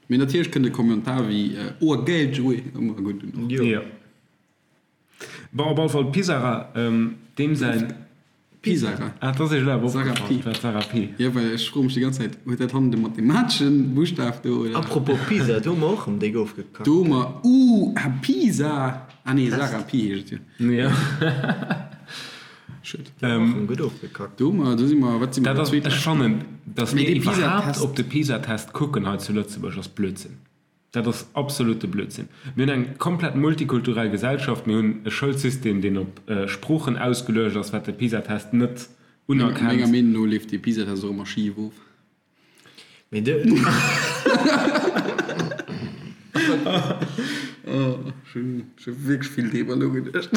Speaker 2: Mee natierlech kënnt e Kommentar wéi Oh gäil Joé ëmmer gutt un.
Speaker 3: Jo.
Speaker 1: Jo. Bon, op alle Fall Pisara, deem säin.
Speaker 2: Pisara.
Speaker 1: Ah, dat ass Iech elo awer
Speaker 2: Sarah
Speaker 1: opgefall,
Speaker 2: Pi.
Speaker 1: dat Sarah Pi.
Speaker 2: Jo, well ech froe mech déi ganz Zäit, huet dat hannen de mathemateschen Buschtaf do, oder?
Speaker 3: Apropos Pisa, do hu mer och erëm déck ofgekackt.
Speaker 2: Do hu mer, uh, ah, Pisa! Ah nee, Sarah Pi heescht et jo.
Speaker 1: Jo.
Speaker 2: Schued.
Speaker 3: Do hu mer och erëm gutt ofgekackt.
Speaker 2: Do hu mer, do si mer, wat si mer,
Speaker 1: Dat ass,
Speaker 2: zweet
Speaker 1: ech fannen, datt
Speaker 2: Mee
Speaker 1: mir
Speaker 2: dee
Speaker 1: iwwerhaapt
Speaker 2: Pisa-Test.
Speaker 1: op de Pisa-Test kucken hei zu Lëtzebuerg, ass Blödsinn. Dat ass absolute Blödsinn. Mir hunn eng komplett multikulturell Gesellschaft, mir hunn e Schoulsystem, deen op Sproochen ausgeluecht ass, wat de PISA-Test net
Speaker 2: Menger
Speaker 1: unerkennt.
Speaker 2: Meenung no leeft dee PISA-Test och ëmmer schif of.
Speaker 3: Mee de.
Speaker 2: Oh, ech hunn wierklech vill driwwer nogeduecht.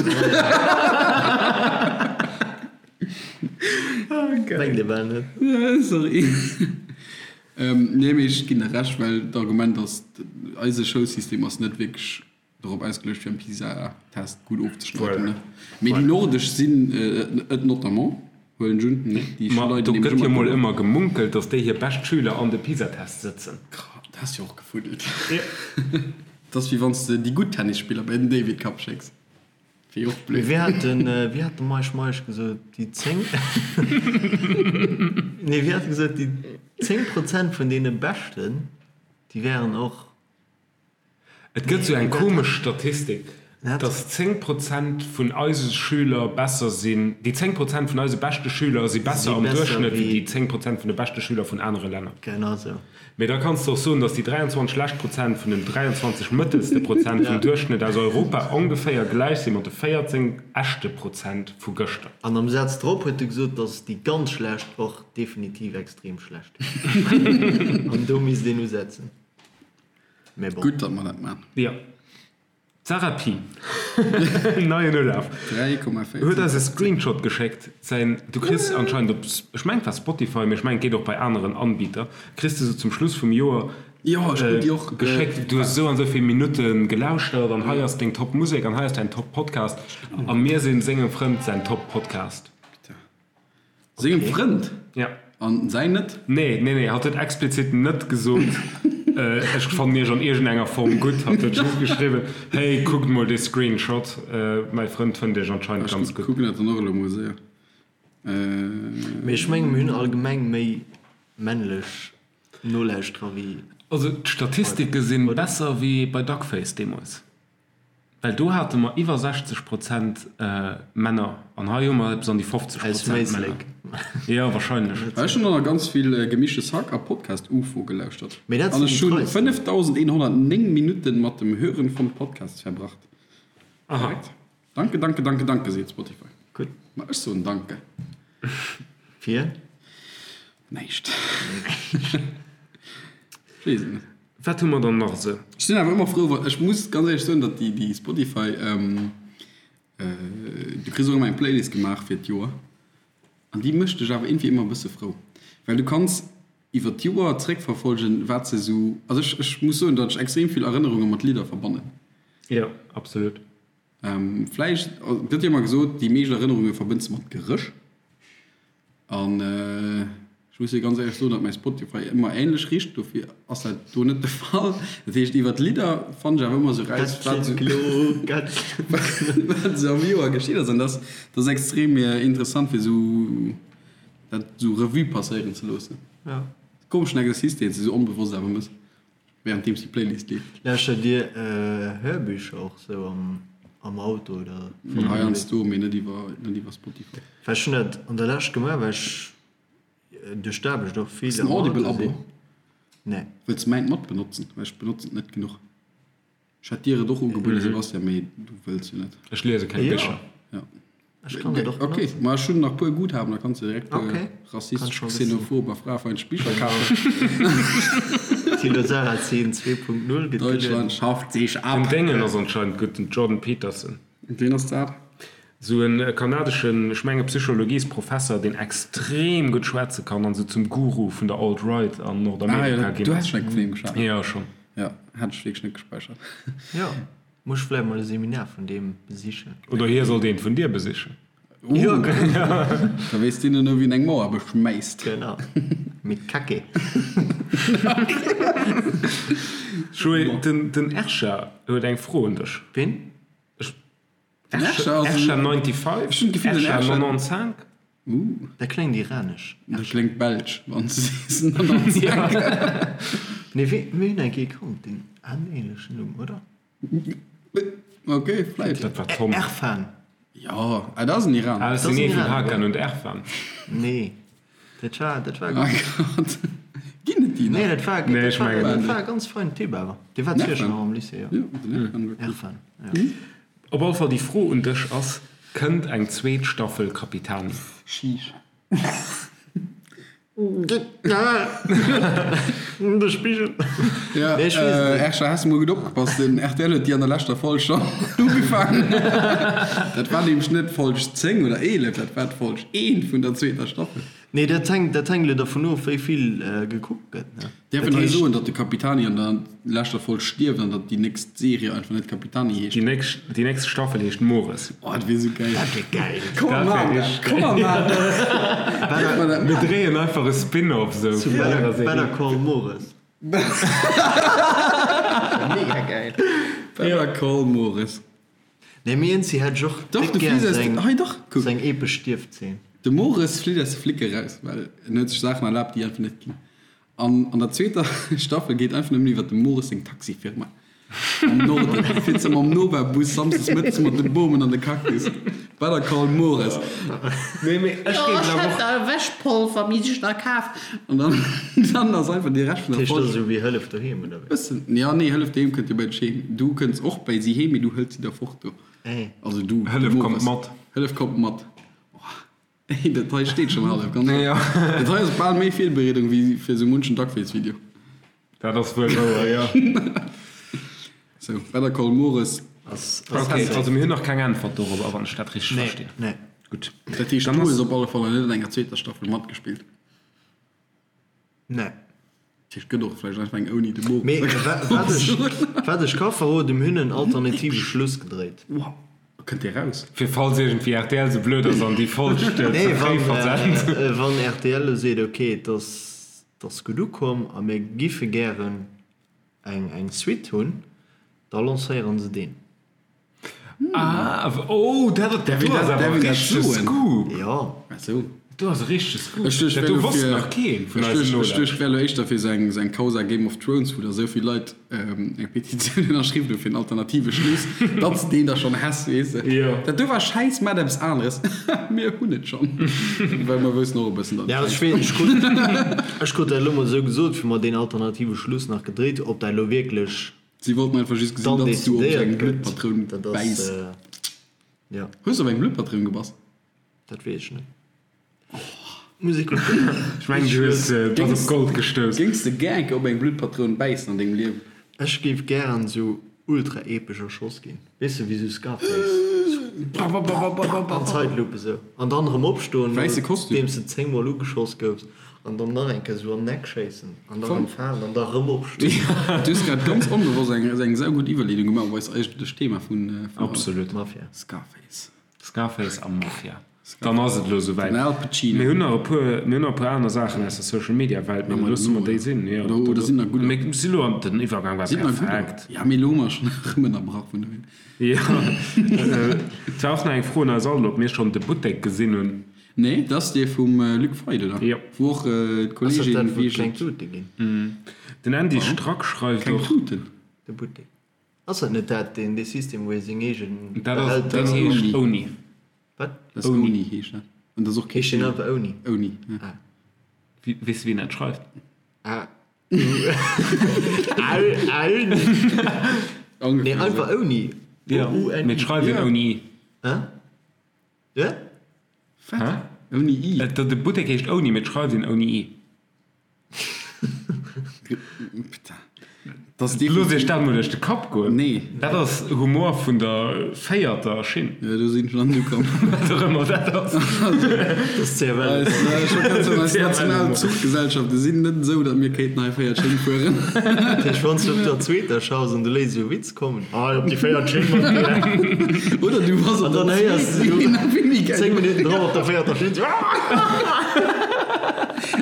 Speaker 3: Mengt ee bal net.
Speaker 2: Sorry. Nee, mee ech ginn der Recht, well d'Argument ass, eise Schoulsystem ass net wierklech dorop ausgeluecht, fir am PISA-Test gutt ofzeschneiden. Mee déi nordesch sinn et notamment, huelen ech un, ne? Déi
Speaker 1: Ma
Speaker 2: schneiden
Speaker 1: do
Speaker 2: nämlech
Speaker 1: gëtt jo
Speaker 2: ëmmer
Speaker 1: mol
Speaker 2: gutt of.
Speaker 1: ëmmer gemunkelt, datt déi hir bescht Schüler an de PISA-Test sëtzen.
Speaker 2: Dat ass jo och gefuddelt. Dat ass wéi wann s de déi gutt Tennisspiller bei den David Cup schécks. Wier och blöd.
Speaker 3: Wéi hat den, wéi hat de Meisch Meisch gesot, déi 10, nee wéi hat e gesot, déi 10 Prozent vun deene Beschten, déi wären och.
Speaker 1: Et gëtt sou eng komesch Statistik, dass 10 Prozent vun eise Schüler besser sinn, déi 10 Prozent vun eise beschte Schüler si besser am Duerchschnëtt wéi déi 10 Prozent vun de beschte Schüler vun anere Länner.
Speaker 3: Genau sou.
Speaker 1: Mee da kanns de och soen, datt déi 23 schlecht Prozent vun den 23 mëttelste Prozent vum Duerchschnëtt aus Europa ongeféier gläich si mat de 14 echte Prozent vu gëschter.
Speaker 3: An am Saz drop huet e gesot, datt déi ganz schlecht och definitiv extrem schlecht wieren. An do misst een usetzen. Mee bon.
Speaker 2: Gutt, datt mer dat maachen.
Speaker 1: Jo. D'Sarah Pi, neien Ulaf,
Speaker 2: 3,14.
Speaker 1: huet eis e Screenshot geschéckt. Säin, du kriss anscheinend op, ech mengen et war Spotify, mee ech mengen et geet och bei aneren Anbieter, kriss de sou zum Schluss vum Joer
Speaker 2: Jo, ech krut déi och
Speaker 1: geschéckt, du hues esou an esou vill Minutte gelauschtert an hei ass deng Top Musek an hei ass däin Top Podcast a mir sinn sengem Frënd säin Top Podcast.
Speaker 2: Sengem Frënd?
Speaker 1: Ja.
Speaker 2: An säin net?
Speaker 1: Nee, nee, nee, hatt huet explizit net gesot, ech fannen iech an iergendenger Form gutt. Hatt huet just geschriwwen, hey, kuckt mol dee Screenshot, mäi Frënd fënnt iech anscheinend ganz
Speaker 2: Ech
Speaker 1: gutt.
Speaker 2: kucken dat dann och elo mol séier.
Speaker 3: Mee ech mengen, mir hunn allgemeng méi männlech Nolauschterer wéi.
Speaker 1: Also d'Statistike si besser wéi bei Duckface deemools. Well do hate mer iwwer 60 Prozent Männer an hei hu mer eppes an déi 50
Speaker 3: Aus
Speaker 1: Prozent Männer.
Speaker 3: Méislek.
Speaker 1: Jo, wahrscheinlech.
Speaker 2: Ech hunn och nach ganz vill Gemischtes Hack a Podcast Ufo gelauschtert.
Speaker 3: Mee dat
Speaker 2: An
Speaker 3: sinn
Speaker 2: ech
Speaker 3: déi
Speaker 2: hunn
Speaker 3: treisten.
Speaker 2: 5109 Minutten mat dem Hören von Podcasts verbracht.
Speaker 1: Aha.
Speaker 2: Korrekt? Danke, danke, danke, danke, seet Spotify.
Speaker 3: Gutt.
Speaker 2: Ma ech soen Danke.
Speaker 3: Fir?
Speaker 2: Näischt. Ech weess et net.
Speaker 1: Wat hu mer dann nach esou?
Speaker 2: Ech sinn awer ëmmer frou, wa, ech muss ganz éierlech soen, datt déi, déi Spotify, du kriss och ëmmer eng Playlist gemaach fir d'Joer an déi mécht dech awer iergendwéi ëmmer e bësse frou, well du kanns iwwer d'Joer zréckverfolgen, wat se esou, also ech, ech muss soen, datt ech extrem vill Erënnerunge mat Lidder verbannen.
Speaker 1: Jo, absolut.
Speaker 2: Vläicht, et gëtt jo ëmmer gesot, déi meescht Erënnerunge verbënns de mat Geréch. An ech muss dir ganz éierlech soen, datt mäi Spotify ëmmer änlech richt, dofir ass dat do net de Fall. Dat heescht, iwwer d'Lidder fannen ech awer ëmmer esou raus, wat esou am Joer geschitt ass. An dat ass extrem interessant, fir esou dat esou Revue passéieren ze loossen. Komeschen Exercice, deen s de esou onbewosst awer mëss. Währenddeems déi Playlist leeft.
Speaker 3: Lauschtert dir Hörbücher och sou am Auto oder
Speaker 2: voll ënnerwee? Heiansdo, mee net iwwer net iwwer Spotify.
Speaker 3: Well ech hunn dat an der Lescht gemaach, well ech duerch d'Aarbecht och vill
Speaker 2: Hues de en
Speaker 3: am Auto
Speaker 2: Audible-Abo?
Speaker 3: sinn. Nee.
Speaker 2: Wëlls de mäint mat benotzen? Well ech benotzen et net genuch. Ech hätt dir et och ugebueden, Sebastian, mee du wëlls jo net.
Speaker 1: Ech liese keng
Speaker 3: Jo.
Speaker 1: Bicher.
Speaker 2: Ja.
Speaker 3: Ech kann et och
Speaker 2: Ok,
Speaker 3: benotzen.
Speaker 2: ma ech hunn nach puer Guthaben, da kanns de direkt puer
Speaker 3: Ok, kann
Speaker 2: rassistesch,
Speaker 3: ech mol wëssen.
Speaker 2: xenophob a fraefeindlech Bicher kafen.
Speaker 3: Thilo Sarrazin 2.0 gëtt gelueden.
Speaker 2: Deutschland schafft sech
Speaker 1: Den
Speaker 2: ab.
Speaker 1: Déngen ass anscheinend gutt, den Jordan Peterson.
Speaker 2: Ween ass dat?
Speaker 1: Sou en kanadeschen, ech menge Psychologiesprofesser, deen extrem gutt schwätze kann an sou zum Guru vun der Alt-Right an
Speaker 2: Ah jo,
Speaker 1: Nordamerika
Speaker 2: du
Speaker 1: ginn
Speaker 2: has
Speaker 1: ass.
Speaker 2: schon eng vun him geschwat.
Speaker 1: Jo, schonn.
Speaker 2: Jo, hat ech wierklech net gespäichert.
Speaker 3: Jo. Muss ech vläit mol e Seminar vun deem besichen.
Speaker 1: Oder hie sollt eent vun dir besichen.
Speaker 3: Jo, genau.
Speaker 2: Da weess deen duerno, wien eng Mauer beschmäisst.
Speaker 3: Genau. Mit Kacke.
Speaker 1: Joé, den, den Ersha huet eng Fro un dech.
Speaker 3: Ween?
Speaker 1: Ech,
Speaker 2: Den Ersha ass
Speaker 1: Ersha
Speaker 2: en.
Speaker 1: 95?
Speaker 2: Ech hunn d'Gefill, den
Speaker 1: Ersha
Speaker 2: Ersha.
Speaker 1: 95?
Speaker 2: Uh.
Speaker 3: Dat kléngt iranesch.
Speaker 2: Dat kléngt belsch, wann s de sees 95.
Speaker 3: Nee, wee, mir hunn eng Kéier kannt, deen hat en ähnlechen Numm, oder?
Speaker 2: Ok, vläit.
Speaker 1: Dat war Tom.
Speaker 3: Erfan.
Speaker 2: Jo, ah, dat ass en Iraner.
Speaker 1: Ah, dat
Speaker 3: Dat ass
Speaker 1: sinn
Speaker 3: en
Speaker 1: ee vun
Speaker 3: Iraner,
Speaker 1: Hakan
Speaker 3: ja.
Speaker 1: und Erfan.
Speaker 3: Nee, dat war, dat war.
Speaker 2: Ah Gott. Ginn et déi nach?
Speaker 3: Nee, dat war,
Speaker 1: Nee,
Speaker 3: dat
Speaker 1: ech
Speaker 3: war,
Speaker 1: mengen
Speaker 3: dat
Speaker 2: net.
Speaker 3: war e ganz feinen Typ awer. Dee war
Speaker 2: Den
Speaker 3: zu Iech
Speaker 2: Erfan?
Speaker 3: nach am Lycée, jo.
Speaker 2: Jo, den Erfan war cool.
Speaker 3: Erfan, ja.
Speaker 1: Op alle Fall, déi Fro un dech ass, Kënnt eng zweet Staffel Capitani?
Speaker 2: Sheesh.
Speaker 3: De Spigel.
Speaker 2: Ja,
Speaker 3: Nee, ech weess et net.
Speaker 2: Ersha, has de mol gutt opgepasst? Den rtl huet déi an der leschter Folg schonn ugefaangen. Dat war nämlech net Folg 10 oder 11, dat war d'Folg 1 vun der zweeter Staffel.
Speaker 3: Nee, dat hänkt, dat hänkt elo dervun of, wéi vill gekuckt gëtt, ne?
Speaker 2: Däerf
Speaker 3: Dat
Speaker 2: een hei
Speaker 3: heescht,
Speaker 2: soen, datt de Capitani an der leschter Folg stierft an datt déi nächst Serie einfach net Capitani heescht?
Speaker 1: Déi nächst, déi nächst Staffel heescht Mores.
Speaker 2: Oh, dat wier sou geil.
Speaker 3: dat wier geil.
Speaker 2: Komm
Speaker 1: Dat
Speaker 2: mer
Speaker 1: wär
Speaker 2: maachen dat.
Speaker 1: richteg
Speaker 2: Komm mer maachen dat. Däerf mer dat
Speaker 1: Mir
Speaker 2: maachen?
Speaker 1: dréien einfach e Spin-off sou
Speaker 3: Zu
Speaker 1: vun
Speaker 3: Better,
Speaker 1: hirer Serie.
Speaker 3: Better Call Mores. Mega geil.
Speaker 2: Better Call Mores.
Speaker 3: Nee, mee eenzi hätt ech och
Speaker 2: Dach,
Speaker 3: déck
Speaker 2: du
Speaker 3: gär
Speaker 2: fliss aus
Speaker 3: seng,
Speaker 2: de, hei dach, kuck.
Speaker 3: seng epesch Stierfzeen.
Speaker 2: De Mores flitt aus de Flicke raus, well en huet sech Saachen erlaabt, déi einfach net ginn. An an der zweeter Staffel geet einfach nëmmen iwwer dem Mores seng Taxifirma am Norden. Fiert se mam Nova-Bus samsdes mëttes mat de Bomen an de Cactus. Better call Mores.
Speaker 1: Nee, mee ech
Speaker 4: Jo,
Speaker 1: géif
Speaker 4: ech
Speaker 1: awer
Speaker 4: hätt
Speaker 1: och.
Speaker 4: da Wäschpolver mi sech da kaf.
Speaker 2: An dann, dann ass einfach déi Rescht vun
Speaker 3: Dat
Speaker 2: der
Speaker 3: heescht, dat
Speaker 2: Folg.
Speaker 3: ass esou wéi Hëllef doheem, oder wéi?
Speaker 2: Bëssen, ja, nee, Hëllef doheem kënnt jo bei dech heem. Du kënns och bäi si heem, mee du hëls si da fort do.
Speaker 3: Ey.
Speaker 2: Also du, de
Speaker 1: Hëllef kommt
Speaker 2: Mores.
Speaker 1: mat.
Speaker 2: Hëllef kommt mat. Ey, dat hei steet schon hallef, ganz
Speaker 1: Ja.
Speaker 2: Dat hei ass bal méi Virbereedung wéi fir sou munchen Duckface-Video.
Speaker 1: Dat ass wuel wouer, jo.
Speaker 2: Sou, Better Call Mores.
Speaker 3: Ass,
Speaker 1: ass okay, also mir hunn nach keng Äntwert dorobber, wann ech dat richteg
Speaker 3: nee,
Speaker 1: verstinn.
Speaker 3: Nee.
Speaker 1: Gutt.
Speaker 2: Dat heescht, du hues op alle Fall net an enger zweeter Staffel matgespillt.
Speaker 3: Nee.
Speaker 2: Dat heescht, gëtt och vläicht einfach eng ouni de Mores.
Speaker 3: Mee wat ech, wat ech ka verroden, mir hunn en alternative Schluss gedréit.
Speaker 2: Wow. Kënnt dee raus?
Speaker 1: Fir falls iergendwéi rtl sou blöd ass an déi Folg ze
Speaker 3: Nee,
Speaker 1: fréi
Speaker 3: wann,
Speaker 1: versent.
Speaker 3: wann rtl elo seet, okay, et ass, et ass gutt ukomm a mir giffe gären eng eng Suite hunn, da lancéieren se deen.
Speaker 1: Ah, oh, dat ass
Speaker 2: Därf een
Speaker 1: ass
Speaker 2: dat,
Speaker 1: awer
Speaker 2: därf een dat
Speaker 1: richtege
Speaker 2: soen?
Speaker 1: Scoop.
Speaker 3: Jo.
Speaker 2: Ach sou.
Speaker 1: Do ass e richtege Scoop.
Speaker 2: Ech duecht,
Speaker 1: Dat
Speaker 2: wär
Speaker 1: do
Speaker 2: lo
Speaker 1: wosst
Speaker 2: fir,
Speaker 1: nach keen vun
Speaker 2: ech
Speaker 1: eisen
Speaker 2: duecht, ech
Speaker 1: Nolauschterern.
Speaker 2: duecht, wär lo éischter fir sou eng, sou eng Causa Game of Thrones, wou da sou vill Leit eng Petitioun ënnerschriwwen hu fir en alternative Schluss, datt s de deen da schonn häss, weess de.
Speaker 1: Jo.
Speaker 2: Dat do war schäiss, mat eppes aneres. Mir hunn et schonn. Well mer woussen och e bëssen, datt
Speaker 3: Ja,
Speaker 2: et
Speaker 3: ech
Speaker 2: schäiss
Speaker 3: weess, ech krut, ech krut dat elo mol esou gesot, wéi mer deen alternative Schluss nach gedréit hunn, ob dat elo wierklech
Speaker 2: Si wollten einfach just gesinn,
Speaker 3: dann
Speaker 2: datt s du op
Speaker 3: decidéiert
Speaker 2: eng
Speaker 3: gëtt,
Speaker 2: Bluttpatroun
Speaker 3: dat ass,
Speaker 2: bäiss.
Speaker 3: jo.
Speaker 2: Hues de op eng Bluttpatroun gebass?
Speaker 3: Dat weess ech net. Muss ech kucken.
Speaker 1: Ech mengen, du hues bass op Gold gestouss.
Speaker 2: Géings de gär eng Kéier op eng Bluttpatroun bäissen an dengem Liewen?
Speaker 3: Ech géif gären esou ultra epesch erschoss ginn. Weess de, wéi sou Scarface. An Zeitlupe esou. An dann erëm opstoen,
Speaker 2: Wäisse Kostüm.
Speaker 3: nodeems de 10 mol ugeschoss goufs. An dann nach eng Kéier esou an den Eck schéissen. An da erëm falen an da erëm opstoen.
Speaker 2: Du hues grad ganz onbewosst eng eng saugutt Iwwerleedung gemaach op eist eigentlecht Thema vun haut.
Speaker 1: Absolut.
Speaker 3: Mafia.
Speaker 2: Scarface.
Speaker 1: Scarface a Mafia. Dann ass et elo esouwäit.
Speaker 2: Den Al Pacino.
Speaker 1: Mir hunn nach e puer, mir hunn nach e puer aner Saachen aus der Social Media Welt, mee da loosse mer déi sinn. Jo,
Speaker 2: Oder, oder sinn nach gudder.
Speaker 1: Mir si lo an, den Iwwergang war
Speaker 2: Sinn nach gudder.
Speaker 1: perfekt.
Speaker 2: Ja, mee elo hu mer schonn erëm ënnerbrach vun dohier.
Speaker 1: Jo, et war och nach eng Fro un eis all, ob mir schonn de Buttek gesinn hunn.
Speaker 2: Nee, dat ass dee vum Luc Feit, oder?
Speaker 1: Jo.
Speaker 2: Wou och
Speaker 3: Ass dat
Speaker 2: d'Kolleegin
Speaker 3: dat, wou
Speaker 2: wéi
Speaker 3: et kleng Tute ginn?
Speaker 1: Den Andy Strack schreift
Speaker 2: Kleng
Speaker 1: och.
Speaker 2: Tuten?
Speaker 3: De Buttek. Ass dat net dat, deen, dee System, wou ee seng eegen
Speaker 1: Dat ass,
Speaker 3: Behälter.
Speaker 1: deen heescht Ouni.
Speaker 3: Wat?
Speaker 2: Dat ass Ouni heescht dat. An dat ass och kee
Speaker 3: Heescht deen einfach Ouni?
Speaker 2: Ouni, ja.
Speaker 3: Ah.
Speaker 1: Wie, weess de wien dat schreift?
Speaker 3: A. U. Au, Auni. Nee,
Speaker 2: Ongeféier
Speaker 3: einfach
Speaker 2: esou.
Speaker 3: Ouni.
Speaker 1: Jo,
Speaker 3: O, U, N,
Speaker 1: mee et
Speaker 3: I.
Speaker 1: schreift een
Speaker 2: Ja.
Speaker 1: ouni i.
Speaker 3: Hä? Ja?
Speaker 2: Wat?
Speaker 1: Hä?
Speaker 2: Ouni i?
Speaker 1: Et, de Buttek heescht Ouni, mee et schreift een ouni i.
Speaker 2: Putain. Das ist
Speaker 1: Looss iech
Speaker 2: definitiv.
Speaker 1: dat mol duerch de Kapp goen.
Speaker 2: Nee.
Speaker 1: Dat ass Humor vun der véierter Schinn.
Speaker 2: Ja, do sinn ech nach net ukomm.
Speaker 1: Wat och ëmmer dat ass.
Speaker 3: Dat ass CFL.
Speaker 2: Eis, äh, scho ganz eis national
Speaker 1: CFL.
Speaker 2: Zuchgesellschafte sinn net esou, datt mir kéinten hei véiert Schinn fueren.
Speaker 3: Dat heescht, wann s du op der zweeter schaffs an du léiss esou e Witz kommen, ah, op déi véiert Schinn mat dir.
Speaker 2: Oder du bass op
Speaker 3: An dann
Speaker 2: der
Speaker 3: héiers du
Speaker 2: zweeter.
Speaker 3: 10 Minutten drop op der véierter Schinn, sou, ah!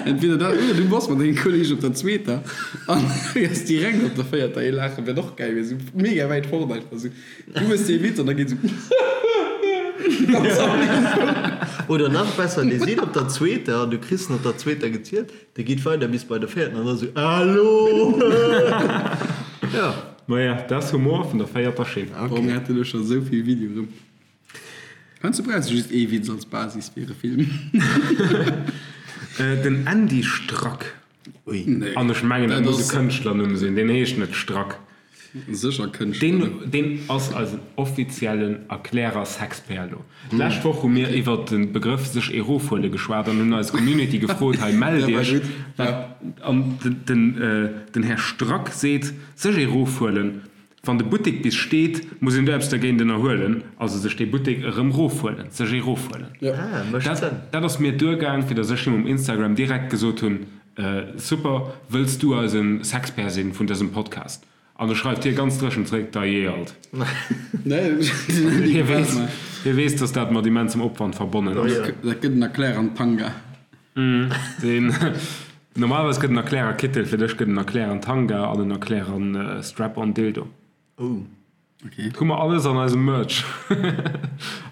Speaker 2: Entweder dat oder du bass mat dengem Kolleg op der zweeter an héiers direkt op der véierter ee laachen. Wär och gäil, wär sou mega wäit fort einfach sou. Du hues dee Witz an da geet sou ganz am Mikro.
Speaker 3: Oder nach besser, dee seet op der zweeter an du kriss en op der zweeter gezielt, dee geet weider bis bei der véierten an da sou, Hallo! Ja.
Speaker 1: Maja, dat ass Humor vun der véierter Schinn.
Speaker 2: Boah, mir hätte lo scho sou vill Video erëm. Heiansdo brauchs du just ee Witz als Basis fir e Film.
Speaker 1: Den Andy Strack.
Speaker 2: Ui.
Speaker 1: An ech mengen, dat
Speaker 2: Dat
Speaker 1: muss e
Speaker 2: ass
Speaker 1: Kënschtlernumm sinn, deen heescht net Strack.
Speaker 2: sécher Kënschtlernumm.
Speaker 1: Deen, deen ass eisen offiziellen Erklärer Sexperlo. D'lescht Woch hu mir iwwert de Begrëff sech erofhuele geschwat an hunn eis Community gefrot, hei mellt
Speaker 2: Dat war
Speaker 1: iech.
Speaker 2: gutt,
Speaker 1: Wat,
Speaker 2: ja.
Speaker 1: an den, den Här Strack seet, sech erofhuelen. Wann de Buttek bis steet, muss een do eppes dergéint ënnerhuelen, also sech dee Buttek erëm rofhuelen, sech ee rofhuelen.
Speaker 3: Ah, mécht
Speaker 1: Dat,
Speaker 3: Sënn.
Speaker 1: dat ass mir duergaang, fir datt ech him um Instagram direkt gesot hunn, Super, wëlls du eisen Sexpert sinn vun dësem Podcast? An da schreift hie ganz dréchen zréck, Dajee alt.
Speaker 2: Nee,
Speaker 1: Hie weess, hie weess, datt dat mat immensem Opwand verbonnen ass.
Speaker 2: Dat gëtt en Erklärer an Tanga.
Speaker 1: Deen, normalerweis gëtt en Erklärer Kittel, fir dech gëtt en Erklärer an Tanga an en Erklärer an Strap-on Dildo.
Speaker 3: Oh.
Speaker 2: Okay.
Speaker 1: Hu mer alles an eisem Merch.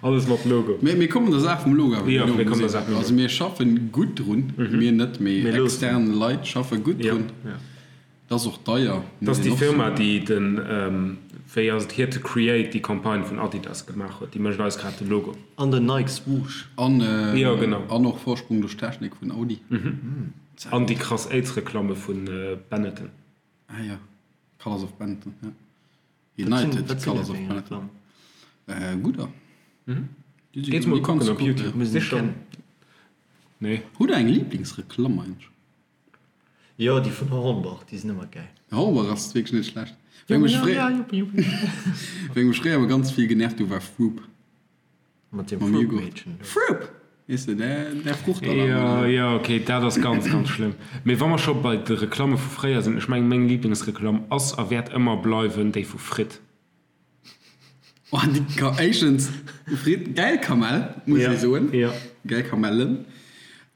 Speaker 1: Alles mat Logo.
Speaker 2: Mee mir kommen der Saach vum Logo awer
Speaker 1: Jo,
Speaker 2: no,
Speaker 1: mir kommen der
Speaker 2: muss
Speaker 1: Saach
Speaker 2: een.
Speaker 1: vum Logo.
Speaker 2: Also mir schaffen gutt drun, mir net, mee
Speaker 3: Mir loossen.
Speaker 2: extern Leit schaffe gutt
Speaker 1: Jo,
Speaker 2: drun.
Speaker 1: jo.
Speaker 2: Dat ass och deier,
Speaker 1: Dat ass
Speaker 2: muss
Speaker 1: déi
Speaker 2: een och
Speaker 1: Firma,
Speaker 2: soen.
Speaker 1: déi den, wéi ass et, Here to Create, déi Campagne vun Adidas gemaach huet. Déi mécht eis grad de Logo.
Speaker 3: An den Nike Swoosh.
Speaker 2: An,
Speaker 1: Jo, genau.
Speaker 2: an och Vorsprung durch Technik vun Audi.
Speaker 1: An déi krass AIDS-Reklamme vu Benetton.
Speaker 2: Ah jo, Colors of Benetton, ja.
Speaker 3: Wat sinn,
Speaker 2: United
Speaker 3: wat sinn
Speaker 2: Colors
Speaker 3: dat
Speaker 2: of
Speaker 3: fir eng
Speaker 2: Benetton.
Speaker 3: Reklamm?
Speaker 2: Gudder. Déi si
Speaker 1: Geet
Speaker 2: gutt,
Speaker 1: mol
Speaker 2: déi kanns
Speaker 1: kucken
Speaker 2: du
Speaker 1: op
Speaker 2: kucken,
Speaker 1: YouTube.
Speaker 2: ja.
Speaker 3: Muss een
Speaker 1: Sicher.
Speaker 3: kennen.
Speaker 1: Nee.
Speaker 2: Hutt der eng Liblingsreklamm eigentlech?
Speaker 3: Jo, déi vun Hornbach, déi sinn ëmmer gäil.
Speaker 2: Hornbach ass wierklech net schlecht. Wéi mech fréier, wéi mech fréier ëmmer ganz vill genervt hu war Froop.
Speaker 3: Mat dem Froop-Meedchen do.
Speaker 2: Froop! Weess de, där, där Fruchtalarm
Speaker 1: Jo,
Speaker 2: oder sou.
Speaker 1: jo, ok, dat ass ganz, ganz schlëmm. Mee wa mer scho bei de Reklamme vu fréier sinn, ech mengen, meng Liblingsreklamm ass a wäert ëmmer bleiwen déi vu Fritt.
Speaker 2: Oh, déi ka, éischtens, Fritt, gäil Kamell, muss
Speaker 1: Ja,
Speaker 2: ee soen.
Speaker 1: ja.
Speaker 2: Gäil Kamellen.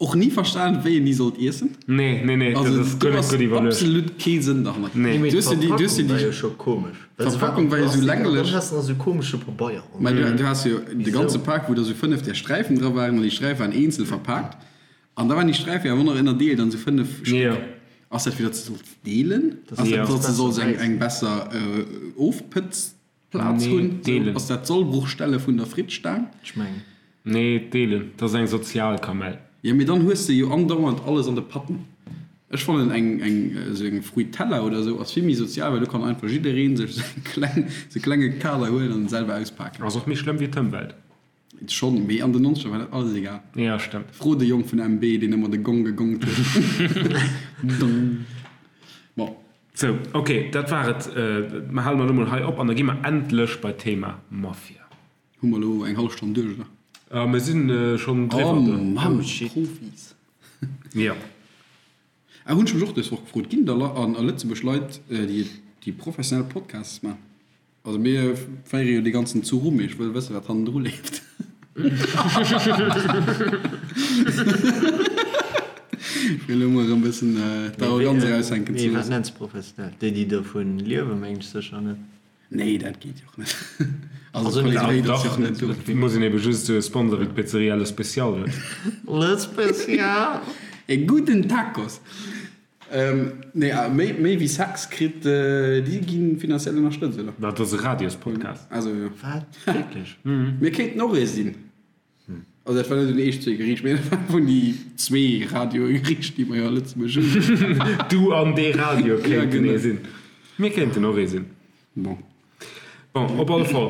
Speaker 2: Och ni verstan, wéi een déi sollt iessen.
Speaker 1: Nee, nee, nee, dat
Speaker 2: Also
Speaker 1: ass
Speaker 2: do
Speaker 1: guer net
Speaker 2: ass
Speaker 1: gutt iwwerluecht.
Speaker 2: absolut kee Sënn derhannert.
Speaker 1: Nee.
Speaker 3: Mee
Speaker 2: Du hues jo déi, du hues jo
Speaker 3: d'Verpackung war
Speaker 2: déi.
Speaker 3: jo scho komesch. Well se war
Speaker 2: D'Verpackung
Speaker 3: am
Speaker 2: war jo sou
Speaker 3: Plastik an dann
Speaker 2: länglech.
Speaker 3: has de nach sou komesche Pabeier an.
Speaker 2: Mä du, du has jo de ganze
Speaker 3: Wisou?
Speaker 2: Pak, wou da sou 5 där Sträifen dra waren, an déi Sträife waren eenzel verpaakt. An da waren déi Sträife awer och nach ënnerdeelt an sou 5 Stéck.
Speaker 1: Jo.
Speaker 2: Ass dat fir datt s de solls deelen?
Speaker 3: Dass
Speaker 2: Ass
Speaker 3: de
Speaker 2: dat,
Speaker 1: Jo.
Speaker 2: datt s de
Speaker 3: besser
Speaker 2: solls eng,
Speaker 3: bäissen.
Speaker 2: eng besser Ofpëtzplaz
Speaker 1: Nee,
Speaker 2: hunn? Sou,
Speaker 1: deelen.
Speaker 2: ass dat d'Sollbruchstelle vun der Frittstaang?
Speaker 3: Ech mengen.
Speaker 1: Nee, deelen. Dat ass eng sozial Kamell.
Speaker 2: Jo, mee dann hues de jo andauernd alles an de Patten. Ech fannen eng eng esou eng Fruitella oder esou ass vill méi sozial, well do kann einfach jiddereen sech esou eng kleng esou e klenge Kader huelen an en selwer auspaken.
Speaker 1: Ass och méi schlëmm wéi d'Ëmwelt.
Speaker 2: Schonn, mee an den Nonzeger war dat alles egal.
Speaker 1: Jo, stëmmt.
Speaker 2: Fro de Jong vun MB, deen ëmmer de Gong gegongt huet. Dong. Bon.
Speaker 1: Sou, ok, dat war et. Mer hale mer elo mol hei op an da gi mer endlech bei d'Thema Mafia.
Speaker 2: Hu mer elo eng hallef Stonn duerch, oder?
Speaker 1: Ah, mir sinn schonn driwwer.
Speaker 2: Oh Mann, Profis.
Speaker 1: Jo.
Speaker 2: Ah, hunn ech mech och dës Woch gefrot, ginn et a Lëtzebuerg Leit, déi professionell Podcasts maachen? Also mir féiere jo dee ganzen Zuch u, mee ech wëll wëssen, wat hannendru leeft. Fir elo mol erëm e bëssen d'Arroganz eraushänken ze
Speaker 3: Mee wat
Speaker 2: loossen.
Speaker 3: nenns de professionell? Déi, déi dovun liewen, mengen ech sécher net.
Speaker 2: Nee, dat geet jo och net. Also
Speaker 3: Also
Speaker 2: d'Qualitéit ass jo och net do.
Speaker 1: Et muss een ebe just esou e Sponsor wéi d'Pizzeria Le Special huet.
Speaker 3: Le Special!
Speaker 2: E gudden Tacos! Nee, méi, méi wéi Sex kritt, déi gi finanziell ënnerstëtzt, oder?
Speaker 1: Dat ass e Radiospodcast.
Speaker 2: Also jo.
Speaker 3: Wat? Wierklech?
Speaker 2: Mir kéinten och ee sinn. Also dat war net un eech zwee geriicht, mee dat war vun déi zwee Radioe geriicht, déi mer jo a Lëtzebuerg hunn.
Speaker 1: Du an dee Radio
Speaker 2: Ja,
Speaker 1: kéinten
Speaker 2: genau.
Speaker 1: ee sinn. Mir kéinten och ee sinn.
Speaker 2: Bon.
Speaker 1: Bon, op alle Fall,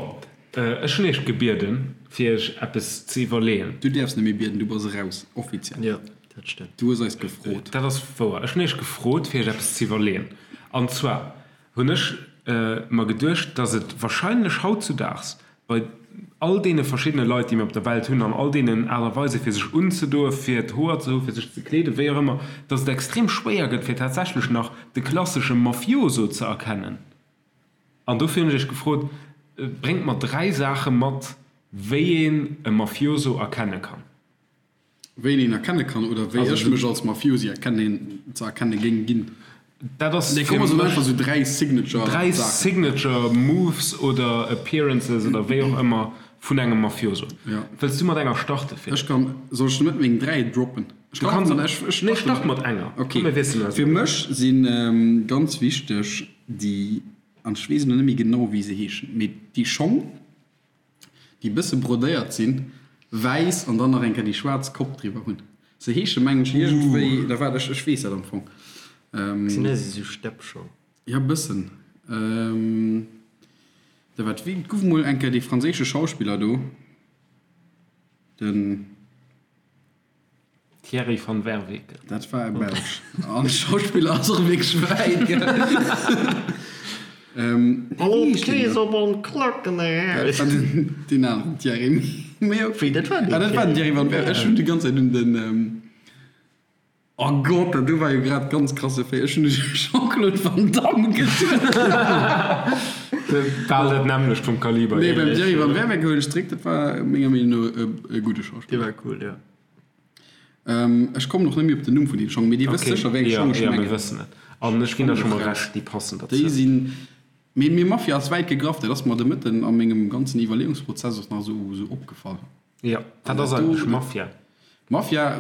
Speaker 1: ech hunn iech gebieden, fir iech eppes ze iwwerleeën.
Speaker 2: Du däerfs net méi bieden, du bass eraus, offiziell.
Speaker 3: Jo, dat stëmmt.
Speaker 2: Du hues eis gefrot.
Speaker 1: Dat ass wouer. Ech hunn iech gefrot, fir iech eppes ze iwwerleeën. An zwar hunn ech mer geduecht, dass et wahrscheinlech hautzudaags bei all deene verschiddene Leit, déi mir op der Welt hunn, an all deenen Aart a Weise fir sech unzedoen, fir d'Hoer ze hu, fir sech ze kleeden, wéi och ëmmer, dass et extrem schwéier gëtt, fir tatsächlech nach de klassesche Mafioso ze erkennen. An dofir hunn ech iech gefrot, Bréngt mer 3 Saache mat, wéi een e Mafioso erkenne kann.
Speaker 2: Wéi een een erkenne kann oder wéi ech mech als Mafiosi erkennen, ze erkenne géing ginn.
Speaker 1: Dat ass
Speaker 2: Nee, komm, mer soen einfach sou 3 Signature
Speaker 1: 3
Speaker 2: Saachen.
Speaker 1: Signature Moves oder Appearances oder wéi och ëmmer vun engem Mafioso.
Speaker 2: Ja.
Speaker 1: Wëlls du mat enger starte, Philippe?
Speaker 2: Ech kann, soll ech net meng 3 droppen? Ech
Speaker 1: Du
Speaker 2: kann
Speaker 1: kanns,
Speaker 2: mat, ech, ech
Speaker 1: nee,
Speaker 2: starte
Speaker 1: start mat enger.
Speaker 2: Ok.
Speaker 1: Komm, mir wiesselen eis
Speaker 2: Fir
Speaker 1: op.
Speaker 2: mech si ganz wichteg déi, an ech weess elo net méi genau wéi se heeschen, mee déi Schong, déi bësse brodéiert sinn, wäiss an dann nach eng Kéier déi schwaarz Kopp driwwer hunn. Se heesche mengen ech iergendwéi, da waart, ech, ech weess dat am Fong.
Speaker 3: Sinn dat esou Steppschong?
Speaker 2: Ja, bëssen. Da waart, wéi gouf mol eng Kéier dee franséische Schauspiller do, den.
Speaker 1: Thierry van Werveke.
Speaker 2: Dat war e Belsch. An Schauspiller ass och wierklech wäit, gell?
Speaker 3: Hallo d'Kees op an d'Klacken
Speaker 2: Dat war den, deen aneren Thierry. Mee ok.
Speaker 3: Wéi, dat war deen
Speaker 2: Ah, dat war den Thierry van Werveke. Ech hunn déi ganz Zäit un den, oh Gott, dat do war jo grad ganz krasse Féi. Ech hunn u Jean-Claude Van Damme geduecht.
Speaker 1: Bal dat nämmlecht vum Kaliber.
Speaker 2: Nee, beim Thierry van Werveke huelen ech zeréck, dat war menger Meenung no e gudde Schauspiller.
Speaker 3: Dee war cool, jo.
Speaker 2: Ech kommen och net méi op den Numm vun deem Schong, mee Dir wësst sécher, wéi eng Schong ech
Speaker 1: Jo, mir
Speaker 2: mengen.
Speaker 1: wëssen et. An ech ginn der scho mol Recht, déi passen derzou.
Speaker 2: Déi sinn, mee mee Mafia ass wäit gegraff, dat ass mer de Mëtten a mengem ganzen Iwwerleeungsprozess och nach esou opgefall.
Speaker 1: Jo, wat ass eigentlech Mafia?
Speaker 2: Mafia,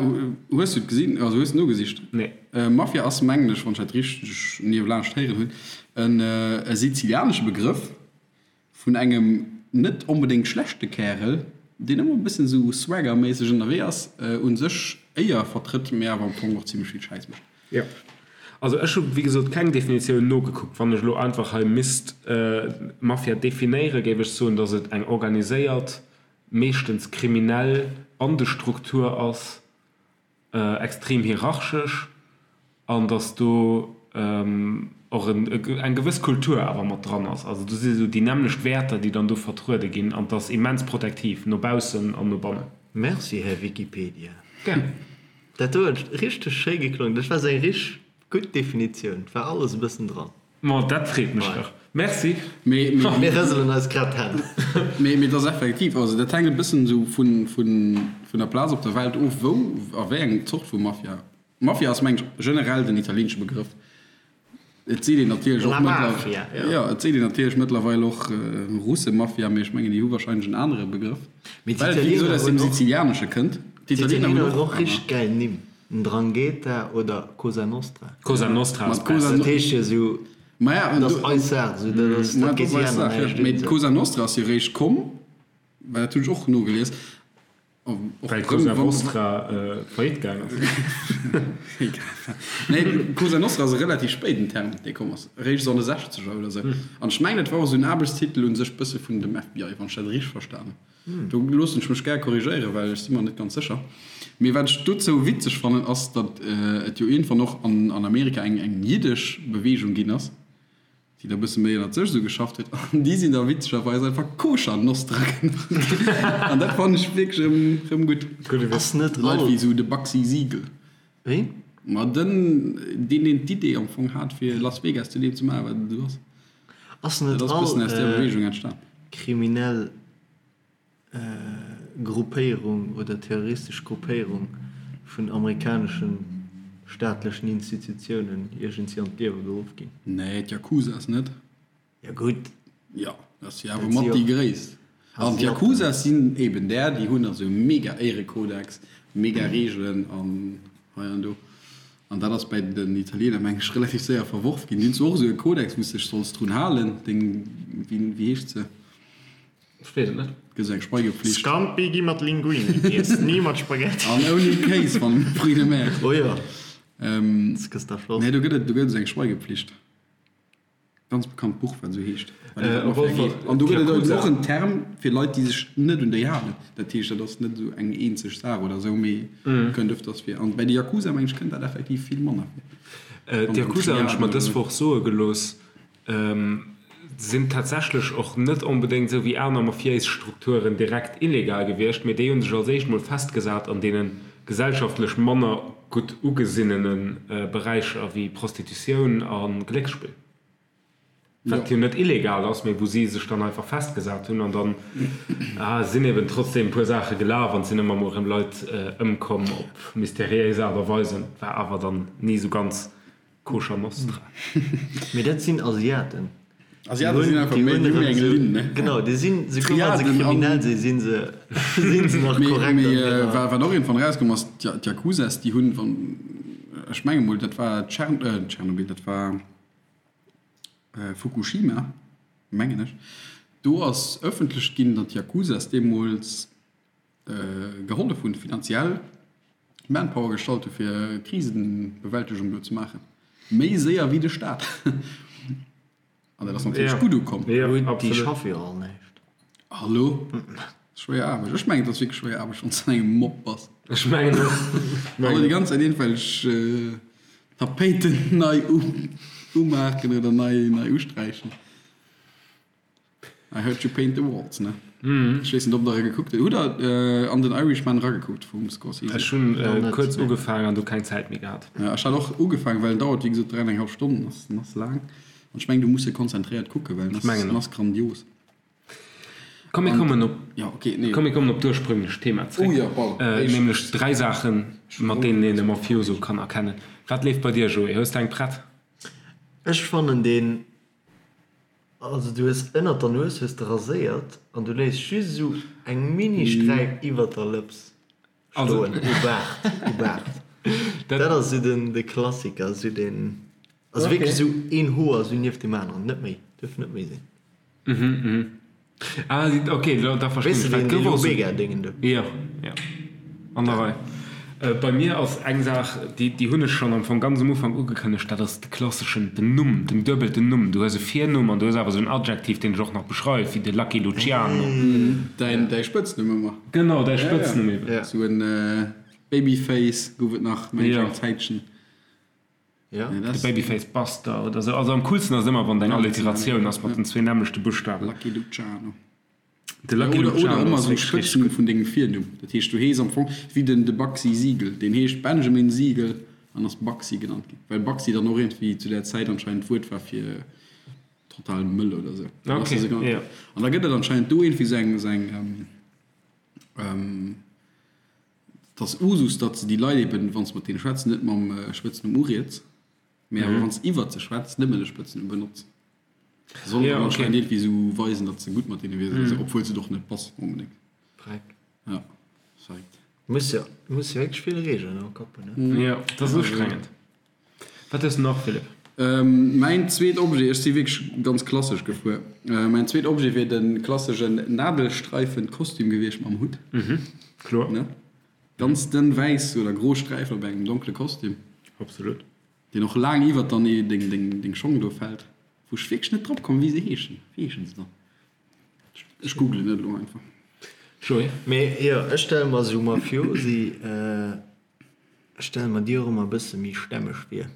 Speaker 2: hues du et gesinn, also hues du nogesicht?
Speaker 1: Nee.
Speaker 2: Mafia ass, mengen ech, wann ech dat richteg niewelaanscht héieren hunn, en sizilianesche Begrëff, Vun engem net onbedéngt schlechte Kärel, deen ëmmer e bëssen esou swaggerméisseg ënnerwee ass, u sech Éier vertrëtt, mee awer am Fong och zimmlech vill Schäiss mécht.
Speaker 1: Jo. Also ech hu wéi gesot keng Definitioun nogekuckt. Wann ech elo einfach hei misst Mafia definéieren, géif ech soen, datt et eng organiséiert, meeschtens kriminell Bandestruktur ass, extrem hierarchesch an datt do. och eng gewëss Kultur awer mat dran ass. Also do si sou déi nämmlecht Wäerter, déi dann do vertruede ginn an 't ass immens protektiv no baussen an no bannen.
Speaker 3: Merci, Här Wikipedia.
Speaker 1: Gär.
Speaker 3: Dat do huet richteg schéi geklongen. Dat war sou eng richteg gutt Definitioun. Et war alles e bëssen dran.
Speaker 1: Ma dat freet mech dach. Merci.
Speaker 2: Mee, mee.
Speaker 3: Mir rëselen eis grad d'Hänn.
Speaker 2: Mee, mee et ass effektiv, also dat hänkt e bëssen esou vun, vun, vun der Plaz op der Welt of, wou a wéi eng Zort vu Mafia. Mafia ass, mengen ech, generell den italieenesche Begrëff. Et seet een natierlech och
Speaker 3: La
Speaker 2: mëttler,
Speaker 3: Mafia, jo.
Speaker 2: jo, et seet een natierlech mëttlerweil och Russe-Mafia, mee ech mengen, déi hu warscheinlech en anere Begrëff,
Speaker 3: Mee
Speaker 2: well et, wéi gesot,
Speaker 3: d'Italiener
Speaker 2: aus dem
Speaker 3: hunn och,
Speaker 2: Sizilianesche kënnt. D'Italiener
Speaker 3: d'Italiener
Speaker 2: hunn
Speaker 3: hunn
Speaker 2: och
Speaker 3: och richteg gäil Nimm, Ndrangheta oder Cosa Nostra.
Speaker 1: Cosa Nostra
Speaker 2: Ma
Speaker 1: ass
Speaker 2: d'Cosa
Speaker 1: besser.
Speaker 3: Dat heescht jo esou,
Speaker 2: Maja, an
Speaker 3: dat
Speaker 2: do,
Speaker 3: ass eis Saach, esou, dat ass,
Speaker 2: ma
Speaker 3: dat
Speaker 2: dat
Speaker 3: geet
Speaker 2: ass
Speaker 3: déi
Speaker 2: eis
Speaker 3: aner
Speaker 2: Saach, jo.
Speaker 3: näischt
Speaker 2: Mee
Speaker 3: un, esou.
Speaker 2: d'Cosa Nostra ass jo eréischt komm, well dat hunn ech och nogelies, Och
Speaker 1: Well Cosa Vostra faillite gaang ass.
Speaker 2: Nee, Cosa Nostra ass e relativ spéiden Term, dee komm ass, eréischt esou an de Sechzeger oder esou. An ech mengen, et war och esou en Aarbechtstitel un sech bësse vun dem FBI, wann ech dat richteg verstan hunn. Do loossen ech mech gär korrigéieren, well ech si mer net ganz sécher. Mee wat ech dozou witzeg fannen, ass, datt et jo iergendwann och an Amerika eng jiddesch Beweegung ginn ass, déi da bësse méi ënnert sech esou geschafft huet, an déi sinn da witzegerweis einfach Koscher Nostra genannt ginn. An dat fannen ech wierklech erëm, erëm gutt.
Speaker 3: Ass net
Speaker 2: Leit
Speaker 3: all.
Speaker 2: wéi esou de Bugsy Siegel.
Speaker 3: Wéi?
Speaker 2: Ma den, deen, deen d'Idee am Fong hat, fir Las Vegas zu deem ze maachen, wat et elo ass.
Speaker 3: Ass net
Speaker 2: Dat ass
Speaker 3: all
Speaker 2: bëssen aus där Beweegung entstan.
Speaker 3: kriminell Gruppéierung oder terroristesch Gruppéierung vun amerikaneschen staatlechen Institutiounen iergendwéi an d'Liewe geruff ginn.
Speaker 2: Nee, d'Jakuzas net.
Speaker 3: Jo gutt.
Speaker 2: Jo, dat si awer mat déi gréisst. An d'Jakuzas sinn eben där, déi hunn also e mega Éirekodex, mega Reegelen an hei an do. An dat ass bäi den Italiener, meng ech, relativ séier verworf ginn. Déi hunn zwar och esou e Kodex, wou s de dech solls drun halen, deng, wéi heescht se?
Speaker 1: Ech weess et net.
Speaker 2: Gëtt eng Schweigepflicht.
Speaker 5: Scampi gi mat Linguini giess, ni mat Spaghetti.
Speaker 2: An ouni Kéis wann Fruits de mer.
Speaker 3: Oh jo, das gëss da flott.
Speaker 2: Nee, do gëtt et, do gëtt et eng Schweigepflicht. Ganz bekannt Buch, wat esou heescht. Wat iwwer d'Mafia geet. An do gëtt et eben och en Term fir Leit, déi sech net un déi halen. Dat heescht, dat ass net esou eng eenzeg Saach oder esou, mee kënnt öfters vir. An bäi de Yakuza, meng ech, kënnt dat effektiv vill manner vir.
Speaker 1: D'Yakuza hunn ech mer dës Woch soe gelooss, sinn tatsächlech och net onbedéngt esou wéi aner mafiéis Strukturen direkt illegal gewiescht, mee déi hu sech als éischt mol festgesat an deene gesellschaftlech manner gutt ugesinnene Beräicher wéi Prostitutioun a Glécksspill, wat jo net illegal ass, mee wou si sech dann einfach festgesat hunn. An dann sinn eben trotzdeem e puer Saache gelaf an et sinn ëmmer mol erëm Leit ëmkomm op mysteriéis Aart a Weisen, war awer dann ni esou ganz Koscher Nostra.
Speaker 3: Mee dat sinn Asiaten.
Speaker 2: Asiaten sinn einfach méi, déi hu méi eng Linn, ne?
Speaker 3: Genau, déi sinn, souguer wa se kriminell sinn, sinn se, sinn se nach korrekt an
Speaker 2: Mee
Speaker 3: hirer.
Speaker 2: wat och iergendwann erauskomm ass, d'Yakuzas, déi hunn, wann, ech menge mol, dat war Tschern, Tschernobyl, dat war Fukushima, mengen ech, do ass ëffentlech ginn, datt d'Yakuzas deemools gehollef hunn, finanziell Manpower gestallt hu fir Krisenbewältegung do ze maachen, méi séier wéi de Staat. An dat ass natierlech gutt ukomm.
Speaker 3: Gutt, déi schaffe jo all näischt.
Speaker 2: Hallo? Schwéier Aarbecht. Ech mengen, et ass wierklech schwéier Aarbecht, wann s de an engem Mob bass.
Speaker 1: Ech mengen och.
Speaker 2: Hallo, déi ganz Zäit iergendwelch Tapéiten nei umaachen oder nei usträichen. I heard you paint the walls, ne? Ech weess net, ob der e gekuckt hutt. Hutt der an den Irishman eragekuckt vum Scorsese?
Speaker 1: Ech hunn kuerz ugefaangen an du keng Zäit méi gehat.
Speaker 2: Ja, ech hat och ugefaangen, well en dauert wéi gesot 3 an eng hallef Stonnen, ass en ass laang. An ech mengen, du muss e konzentréiert kucken, well en ass, en ass grandios.
Speaker 1: Komm mir kommen op,
Speaker 2: Ja, okay, nee.
Speaker 1: komm mir kommen op d'ursprünglech Thema zréck.
Speaker 2: Oh ja, pardon.
Speaker 1: Nämlech dräi Saachen, mat deenen een e Mafioso kann erkennen. Wat leeft bei dir, Joé? Hues de eng prett?
Speaker 3: Ech fannen deen Also du hues ënnert der Nues hues de raséiert an du léiss just esou eng mini Sträif iwwert der Lëps stoen, u Baart, u Baart. Dat ass esou den de Klassiker, esou den, also wierklech esou een Hoer esou nieft deem aneren, net méi, duerf net méi sinn.
Speaker 1: Ah, ok, da verstinn
Speaker 3: Weess
Speaker 1: ech.
Speaker 3: de
Speaker 1: Wat
Speaker 3: deen
Speaker 1: gouf
Speaker 3: deen
Speaker 1: och esou.
Speaker 3: Omega-Déngen do?
Speaker 1: Jo, jo, an der Rei. Bei mir ass eng Saach, déi, déi hunn ech schonn am Fong ganz um Ufank ugekënnegt, dat ass de klasseschen, den Numm, den duebelten Numm. Du hues e Virnumm an du hues awer esou en Adjektiv, deen dech och nach beschreift, wéi de Lucky Luciano.
Speaker 2: Däin, däi Spëtznumm ëmmer.
Speaker 1: Genau, däi Spëtznumm eben.
Speaker 2: Esou en Babyface gouf et nach, meng ech, eng Zäitchen.
Speaker 3: Ja.
Speaker 1: De Babyface Buster oder sou. Also am coolsten ass et ëmmer, wann et eng Alliteratioun ass mat den zwee nämmlechte Buschtawen.
Speaker 2: Lucky Luciano.
Speaker 1: De Lucky
Speaker 2: Oder, oder
Speaker 1: Luciano
Speaker 2: ëmmer
Speaker 1: ass
Speaker 2: esou
Speaker 1: wierklech richteg
Speaker 2: Spëtznumm
Speaker 1: gutt.
Speaker 2: vun dengem Virnumm. Dat heescht, du hees am Fong wéi den de Bugsy Siegel. Deen heescht Benjamin Siegel an ass Bugsy genannt ginn. Well Bugsy dann och iergendwéi zu där Zäit anscheinend d'Wuert war fir total mëll oder sou. Dann ass
Speaker 1: Okay,
Speaker 2: e sou genannt
Speaker 1: ja.
Speaker 2: ginn. An da gëtt et anscheinend do iergendwéi sou eng, sou eng, ähm, Et ass Usus, datt se déi Leit eben, wann s de mat deene schwätz, net mam Spëtznumm uriets, mee awer wann s de iwwert se schwätz, nëmmen de Spëtznumm benotz. Soll dann anscheinend iergendwéi esou weisen, datt s de gutt mat deene wiers oder esou, obwuel s et och net bass onbedéngt.
Speaker 3: Dreck.
Speaker 2: Ja, verréckt.
Speaker 3: Muss jo, muss jo wierklech vill Regeln am Kapp hunn, ne?
Speaker 1: Jo, dat ass ustrengend. Wat hues de nach, Philippe?
Speaker 2: Mäin zweet Objet, ech si wierklech ganz klassesch gefuer, mäin zweet Objet wier de klasseschen Nadelstreifen-Kostüm gewiescht mam Hutt.
Speaker 1: Mhm, kloer.
Speaker 2: Ne? Ganz dënn wäiss oder gro Sträifen op engem donkle Kostüm.
Speaker 1: Absolut.
Speaker 2: Deen och laang iwwert dann deng, deng Schong do fält. Wou ech wierklech net drop komm, wéi se heeschen. Wéi heeschen se dann? Ech googlen et elo einfach.
Speaker 1: Joé?
Speaker 3: Mee jo, ech stelle mer esou Mafiosi. Ech stelle mer déi och ëmmer e bësse méi stämmeg vir.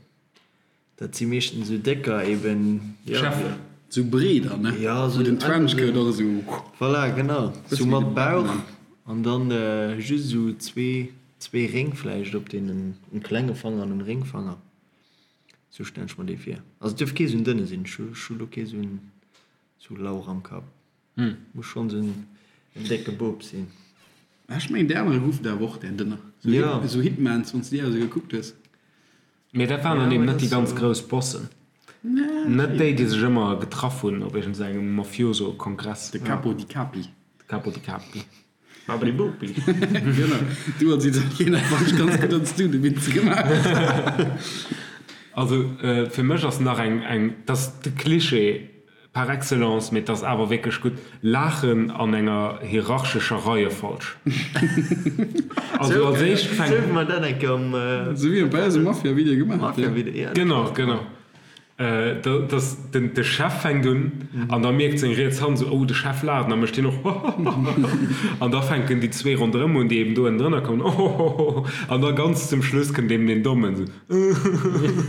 Speaker 3: Dat si meeschtens esou décker eben, jo.
Speaker 1: Cheffen.
Speaker 2: Esou breeder, ne?
Speaker 3: Jo,
Speaker 2: Wou
Speaker 3: esou
Speaker 2: den Trenchcoat och esou.
Speaker 3: Voilà, genau.
Speaker 2: Bësse
Speaker 3: Esou
Speaker 2: wéi
Speaker 3: mat
Speaker 2: de
Speaker 3: Bauch
Speaker 2: Batman.
Speaker 3: an dann just esou zwee, zwee Réng vläicht op deenen, en klenge Fanger an en Réngfanger. Esou stellen ech mer dee vir. Also et duerf kee esou en dënne sinn. Ech hu lo kee esou en, esou Lauch am Kapp. Muss schonn esou en décke Bub sinn.
Speaker 2: Ech mengen déi anere goufen der awer och där dënner. Esou Hitmans, wann s de déi esou gekuckt hues.
Speaker 1: Mee dat waren dann eben net déi ganz grouss Bossen. Net déi, déi sech ëmmer getraff hunn op iergend engem Mafioso-Kongress.
Speaker 2: De Capo di Capi.
Speaker 1: De Capo di Capi.
Speaker 5: Babidi Bopi.
Speaker 2: Genau. Du als Italiener wann ech ganz gutt ans du de Witz gemaach.
Speaker 1: Also fir mech ass nach eng, eng, dat ass de Cliché par excellence, mee et ass awer wierklech gutt, Laachen an enger hierarchescher Reiefolg. Also als éischt fänkt.
Speaker 3: Sou wéi mer dat eng Kéier am.
Speaker 2: Sou wéi bei eisem Mafia-Video gemaach, ja.
Speaker 1: Genau, genau. Dass den de Chef fänkt un an da mierkt seng riets Hand esou, oh de Chef laacht an da mécht hien och hohohoho an da fänken déi zwee ronderëm un, déi eben do ënnendrënner kommen, ohohoho an da ganz zum Schluss kënnt eben deen Dommen esou
Speaker 3: uhuhuhu.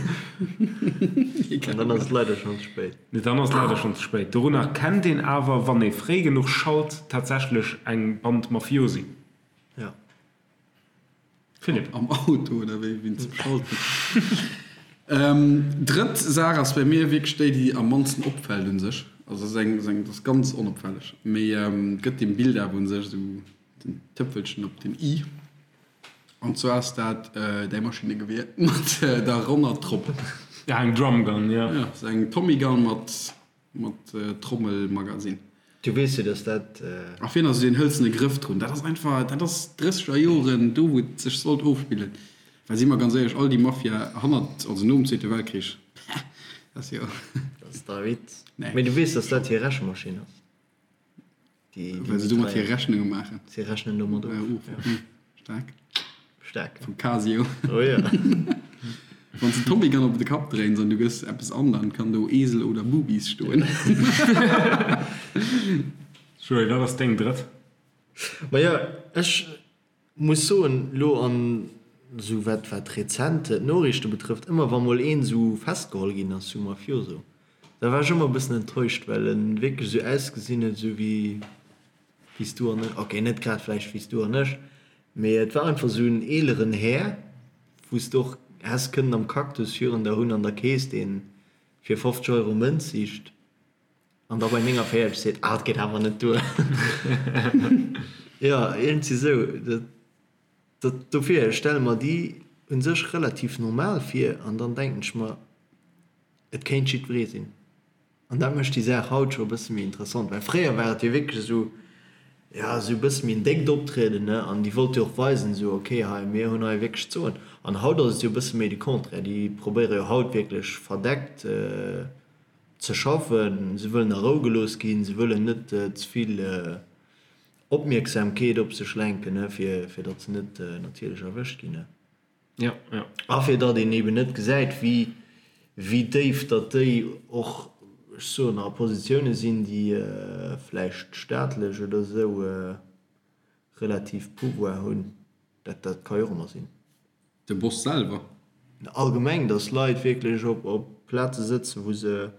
Speaker 3: An dann ass et leider schonn ze spéit.
Speaker 1: Nee, dann ass et leider schonn ze spéit. Dorunner kennt een awer, wann ee fréi genuch schalt, tatsächlech eng Band Mafiosi.
Speaker 3: Ja.
Speaker 1: Philippe.
Speaker 2: Am Auto oder wéi wien zum Schalten. Drëtt Saach ass bei mir wierklech déi, déi am mannsten opfält un sech. Also ass eng, eng, ass ganz onopfälleg, mee gëtt dem Bild awer un sech esou den Tëpfelchen op den i. An zwar ass dat däi Maschinnegewier mat der ronner Tropp.
Speaker 1: Ja, eng Drumgun, ja.
Speaker 2: Ja, ass eng Tommygun mat Mat Trommelmagazin.
Speaker 3: Du weess jo, dass dat.
Speaker 2: A virun ass esou deen hëlzene Grëff drun. Dat ass einfach, dat ass drësseger Joren, do wou et sech sollt ofspillen. Well si mer ganz éierlech, all déi Mafia hannert, also nom Zweete Weltkrich, dat ass jo.
Speaker 3: Dat ass dei Witz.
Speaker 2: Nee.
Speaker 3: Mee du weess, dass dat hir Rechemaschinn ass. Déi,
Speaker 2: Well se domat hir Rechnunge maachen.
Speaker 3: Si rechnen domat of.
Speaker 2: Of, ja. Staark.
Speaker 3: Staark.
Speaker 2: Vum Casio.
Speaker 3: Oh ja.
Speaker 2: Wann s de Tommy Gun op de Kapp dréins an du gëss eppes an, dann kann do Esel oder Boobies stoen.
Speaker 1: Joé, wat ass deng drëtt?
Speaker 3: Majo, ech muss soen, lo an esou wat wat rezent d'Noriichte betrëfft, ëmmer wa mol een esou festgeholl ginn ass, sou Mafioso, da war ech ëmmer e bëssen enttäuscht, well en wierklech esou ausgesinn huet, esou wéi wéi s du an ech, ok, net grad vläicht wéi s du an ech, mee et war einfach esou en eeleren Här, wou s de och häss kënnen am Cactus virun der hunn an der Kees, deen fir 50 Euro Mënz sicht an da bei 49 seet, ah, et geet awer net duer. Jo, iergendwéi esou. Dat, dat, dofir stelle mer déi u sech relativ normal vir an dann denken ech mer, et kéint jiddweree sinn. An dat mécht déi Saach haut scho e bësse méi interessant, well fréier war et jo wierklech esou, jo, esou e bësse méi en déckt Optrieden, ne, an déi wollte jo och weisen, esou, ok, hei, mir hunn hei wierklech ze soen. An haut ass et jo e bësse méi de Contraire, déi probéiere jo haut wierklech verdeckt ze schaffen, se wëllen a Rou gelooss ginn, se wëllen net ze vill Opmierksamkeet op sech lenken, ne, fir, fir datt se net natierlech erwëscht ginn, ne.
Speaker 1: Ja, ja.
Speaker 3: A fir datt een eben net gesäit, wéi, wéi déif datt déi och, ech soen, a Positioune sinn, déi vläicht staatlech oder esou relativ Pouvoir hunn. Dat, dat ka jo och ëmmer sinn.
Speaker 2: De Boss selwer?
Speaker 3: Allgemeng, datt Leit wierklech op op Plaze sëtzen, wou se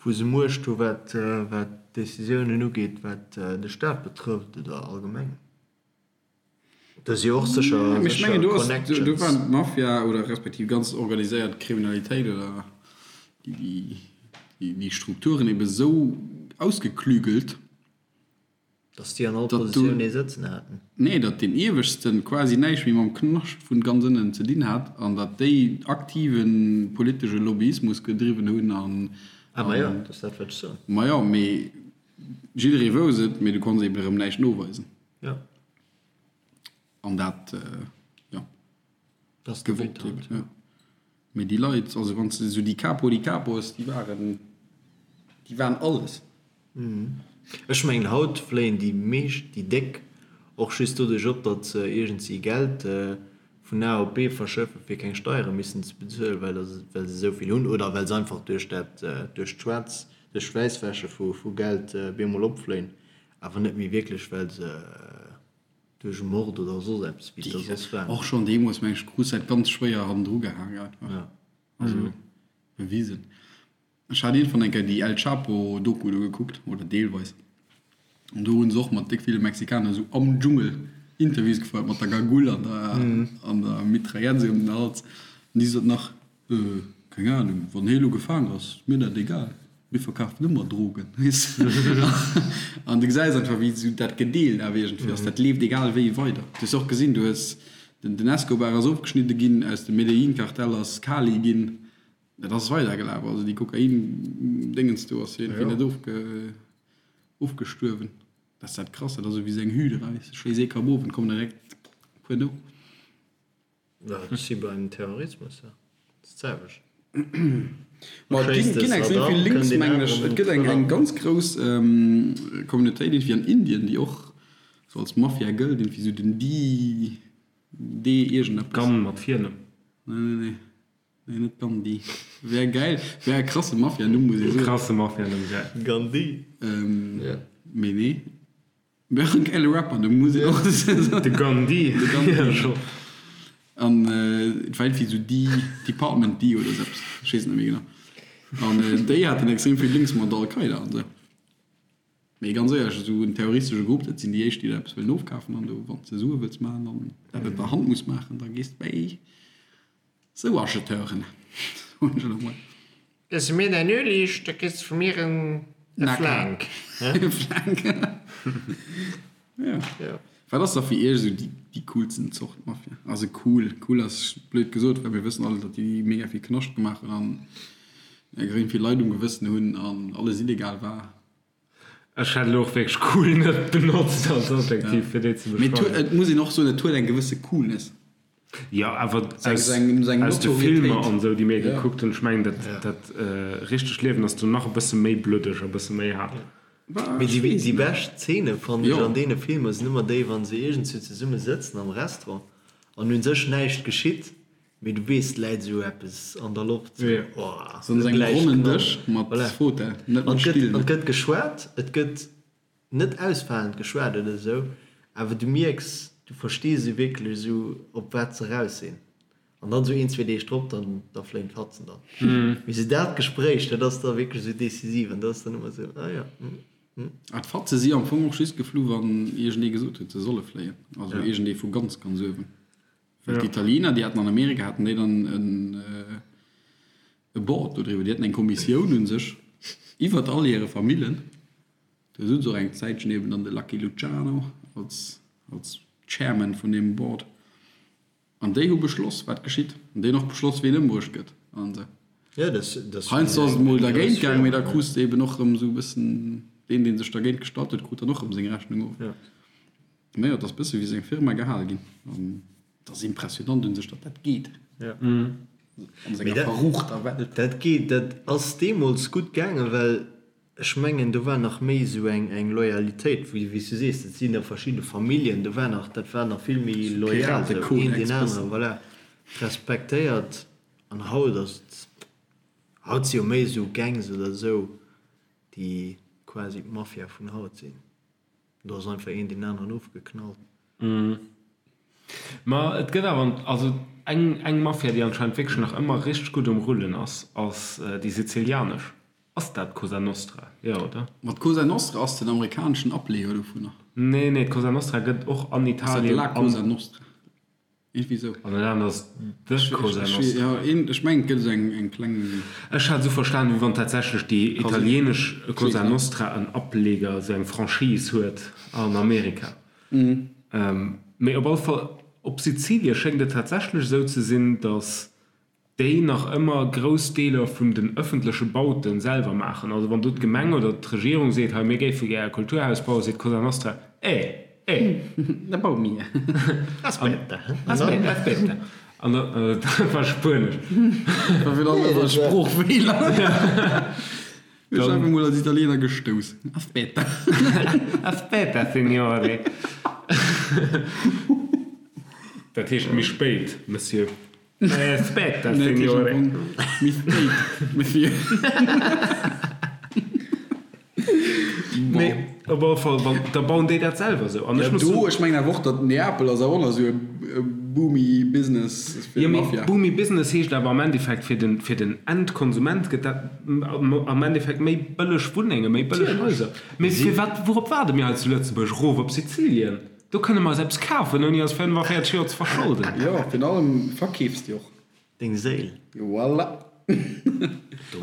Speaker 3: wou se Muecht hu wat wat Decisiounen ugeet, wat de Staat betrëfft oder allgemeng. Do si jo och sécher
Speaker 2: Mee ech mengen, do ass,
Speaker 3: Connections.
Speaker 2: do waren d'Mafia oder respektiv ganz organiséiert Kriminalitéit oder déi déi déi Strukturen ebe sou ausgeklügelt,
Speaker 3: Datt déi an all
Speaker 2: datt do,
Speaker 3: Positioun ee sëtzen haten.
Speaker 2: nee, datt deen Ieweschten quasi näischt méi mam Knascht vun ganz ënnen ze dinn hat an datt déi aktive politesche Lobbyismus gedriwwen hunn an,
Speaker 3: Ah, ma jo,
Speaker 2: an,
Speaker 3: dat ass dat, wat ech soen.
Speaker 2: ma jo, mee jidderee wousst et, mee du konns eben erëm näischt noweisen.
Speaker 3: Jo.
Speaker 2: An dat, jo.
Speaker 3: Dat ass de
Speaker 2: Gewollt
Speaker 3: But halt,
Speaker 2: eben, jo. Mee déi Leit, also wann s de esou déi Capo di Capos, déi waren, déi waren alles.
Speaker 3: Ech mengen haut fléien déi meescht, déi déck, och just doduerch op, datt se iergendwéi Geld vun A op B verschëffen, fir keng Steiere missen ze bezuelen, well well se esou vill hunn oder well se einfach duerch dat, duerch d'Schwaarz, duerch d'Wäisswäsche vu vu Geld bemol opfléien, awer net méi wierklech well se Duerch e Mord oder soss eppes, wéi et da soss war.
Speaker 2: Och schonn deemools, meng ech, krus dat ganz schwéier hannendru gehaang einfach.
Speaker 3: Ja.
Speaker 2: Also bewisen. Ech hat iergendwann eng Kéier déi El Chapo Doku do gekuckt, oder deelweis, an do hu se och mat déck ville Mexikaner esou am Dschungel Interviews gefouert, mat der Gagull an der an der Mitraillette esou ëm den Hals. An déi sot nach, Keng Ahnung, wann hie lo gefaang ass, mir dat egal, mir verkafen ëmmer Drogen, weess de. An du gesäis einfach, wéi esou dat gedeelt awer iergendwéi ass, dat leeft egal wéi weider. Du hues och gesinn, du hues, den Escobar ass ofgeschnidde ginn, aus dem Medellin-Kartell ass Cali ginn, dat ass weidergelaf, also déi Kokain-Déngens do ass jo iergendwéi net ofge, ofgestuerwen. Dat ass dat Krass, dat ass esou wéi esou eng Hydra, weess de, schléiss ee Kapp of an et kommen der direkt e puer no.
Speaker 3: Dat ass wéi beim Terrorismus, dat ass d'selwecht.
Speaker 2: Ma et ginn, ginn extrem vill Links, mengen ech. Et gëtt eng, eng ganz grouss Communautéit iergendwéi an Indien, déi och sou als Mafia gëllt, iergendwéi sou den D, D iergendeppes.
Speaker 1: Gan mat Virnumm?
Speaker 2: Nee, nee, nee. Nee, net Gandhi. Wär gäil, wär e krasse Mafia-Numm, muss ee soen.
Speaker 1: Krasse Mafia-Numm, gäil.
Speaker 3: Gandhi.
Speaker 2: Mee nee. Wär en gäile Rapper, do muss een och soen.
Speaker 1: De Gandhi.
Speaker 2: De Gandhi. An et war iergendwéi esou D, Department D oder esou eppes, ech weess et net méi genau. An déi haten extrem vill Links mat Al-Qaida an esou. Mee ganz éierlech, esou en terroristesche Grupp, dat sinn déi éischt, déi der eppes wëllen ofkafen. An do, wann s de Sue wëlls maachen an dat op der Hand muss maachen, da gees de bäi esou Acheteuren, soen ech elo mol.
Speaker 5: Gëss mir däin Ueleg, da kriss de vu mir en Flank.
Speaker 2: E Flank. Ja. Wat ass da fir iech esou déi coolsten Zort Mafia? Also cool, cool ass blöd gesot, well mir wëssen all, datt déi mega vill Knascht gemaach hunn an extrem vill Leit um Gewëssen hunn an alles illegal war.
Speaker 1: Ech hätt elo och wierklech cool net benotzt als Adjektiv fir déi ze
Speaker 2: Mee
Speaker 1: beschreiwen.
Speaker 2: et muss een och soen, et huet eng gewësse Coolness.
Speaker 1: Jo, awer aus, aus de Filmer an esou, déi mir gekuckt hunn, ech mengen dat, dat richtegt Liewen ass do nach e bësse méi bluddeg a bësse méi haart.
Speaker 3: Mee déi, déi bescht Zeene fannen ech an deene Filmer sinn ëmmer déi, wa se iergendswou zesumme sëtzen am Restaurant an un sech näischt geschitt, Mee du weess, et läit esou eppes an der Loft, sou, oh,
Speaker 2: Sou un engem ronnen Dësch mat Fauteuil, net mat Still.
Speaker 3: An et gëtt geschwat, et gëtt net ausfalend geschwat oder esou, awer du mierks, du verstees esou wierklech esou, op wat se raus sinn. An dann esou een, zwee Deeg drop, dann, da fléien d'Fatzen dann. Mee esou dat Gespréich, dat ass da wierklech esou decisiv an dat ass dann ëmmer esou, ah jo, hm, hm.
Speaker 2: Ah, d'Fatze si am Fong och just geflu wann iergendee gesot huet, se solle fléien, also iergendee vu ganz, ganz uewen. Well d'Italiener, déi haten an Amerika haten déi dann en e Board do driwwer, déi haten eng Kommissioun un sech iwwert all hire Famillen. Do sutz och eng Zäitchen eben dann de Lucky Luciano als als Chairman vun deem Board. An déi hu beschloss, wat geschitt. An déi hunn och beschloss, ween ëmbruecht gëtt an esou.
Speaker 3: Ja, das, das
Speaker 2: Heiansdo ass et mol dergéint gaang, mee da krus de eben och erëm esou e bëssen, deen, dee sech dergéint gestallt huet, krut dann och erëm seng Rechnung of.
Speaker 3: Ja.
Speaker 2: Mä jo, et ass bësse wéi seng Firma gehale ginn. An et ass impressionant un sech, datt dat geet an senger verruchter Welt.
Speaker 3: Dat geet, dat ass deemools gutt gaangen, well ech mengen, do war nach méi esou eng eng Loyalitéit, wéi wéi s du sees, dat sinn da verschidde Familljen, do war nach, dat war nach vill méi loyal, esou een deen aneren, voilà, respektéiert. An haut ass et, haut si jo méi esou Gangs oder esou, déi quasi d'Mafia vun haut sinn. Do ass einfach een deen aneren ofgeknallt.
Speaker 1: Ma et gëtt awer, also. Eng eng Mafia, déi anscheinend wierklech nach ëmmer richteg gutt um Rullen ass, ass déi sizilianesch. Ass dat d'Cosa Nostra? Jo, oder?
Speaker 2: Ma d'Cosa Nostra ass den amerikaneschen Ableeër dovunner.
Speaker 1: Nee, nee, d'Cosa Nostra gëtt och an
Speaker 2: Ass dat
Speaker 1: Italien
Speaker 2: La
Speaker 1: an.
Speaker 2: Cosa Nostra? Iergendwéi esou.
Speaker 1: An den aneren ass The Cosa
Speaker 2: Ech,
Speaker 1: Nostra.
Speaker 2: jo, een, ech mengen, et gëtt esou eng, eng kleng.
Speaker 1: Ech hat esou verstanen, wéi wann tatsächlech déi italienesch Cosa Nostra en Ableger, esou eng Franchise huet an Amerika. Mee op alle Fall, op Sizilie schéngt et tatsächlech esou ze sinn, datt déi nach ëmmer grouss Deeler vun den ëffentleche Baute selwer maachen. Also wann do d'Gemeng oder d'Regierung seet, hei mir géife gär e Kulturhaus bauen, seet d'Cosa Nostra, Eh, eh.
Speaker 2: Da baue mir.
Speaker 3: Aspetta.
Speaker 1: Aspetta, aspetta. An da, dat war Spuenesch.
Speaker 2: Dat war wieder e Sproochfeeler. Ech einfach mol als Italiener gestouss. Aspetta.
Speaker 1: Aspetta, Signore. Dat heescht méi spéit, Monsieur. Aspetta, Signore.
Speaker 2: Méi spéit, Monsieur.
Speaker 1: Mee op alle Fall, wann, da bauen déi dat selwer esou. An ech muss
Speaker 2: Do,
Speaker 1: soen.
Speaker 2: ech mengen awer och, datt Neapel ass awer och nach esou e boomy Business fir
Speaker 1: Jo, mee
Speaker 2: d'Mafia.
Speaker 1: boomy Business heescht awer am Endeffekt fir den, fir den Endkonsument gëtt dat am Endeffekt méi bëlleg Wunnenge, méi bëlleg Haiser. Mee firwat, wourop waarde mir hei zu Lëtzebuerg? Erof op Sizilien? Do kënne mer eis eppes kafen, ouni eis 45 Joer ze verscholden.
Speaker 2: Jo, virun allem verkeefs de och.
Speaker 3: Deng Séil.
Speaker 2: Voilà.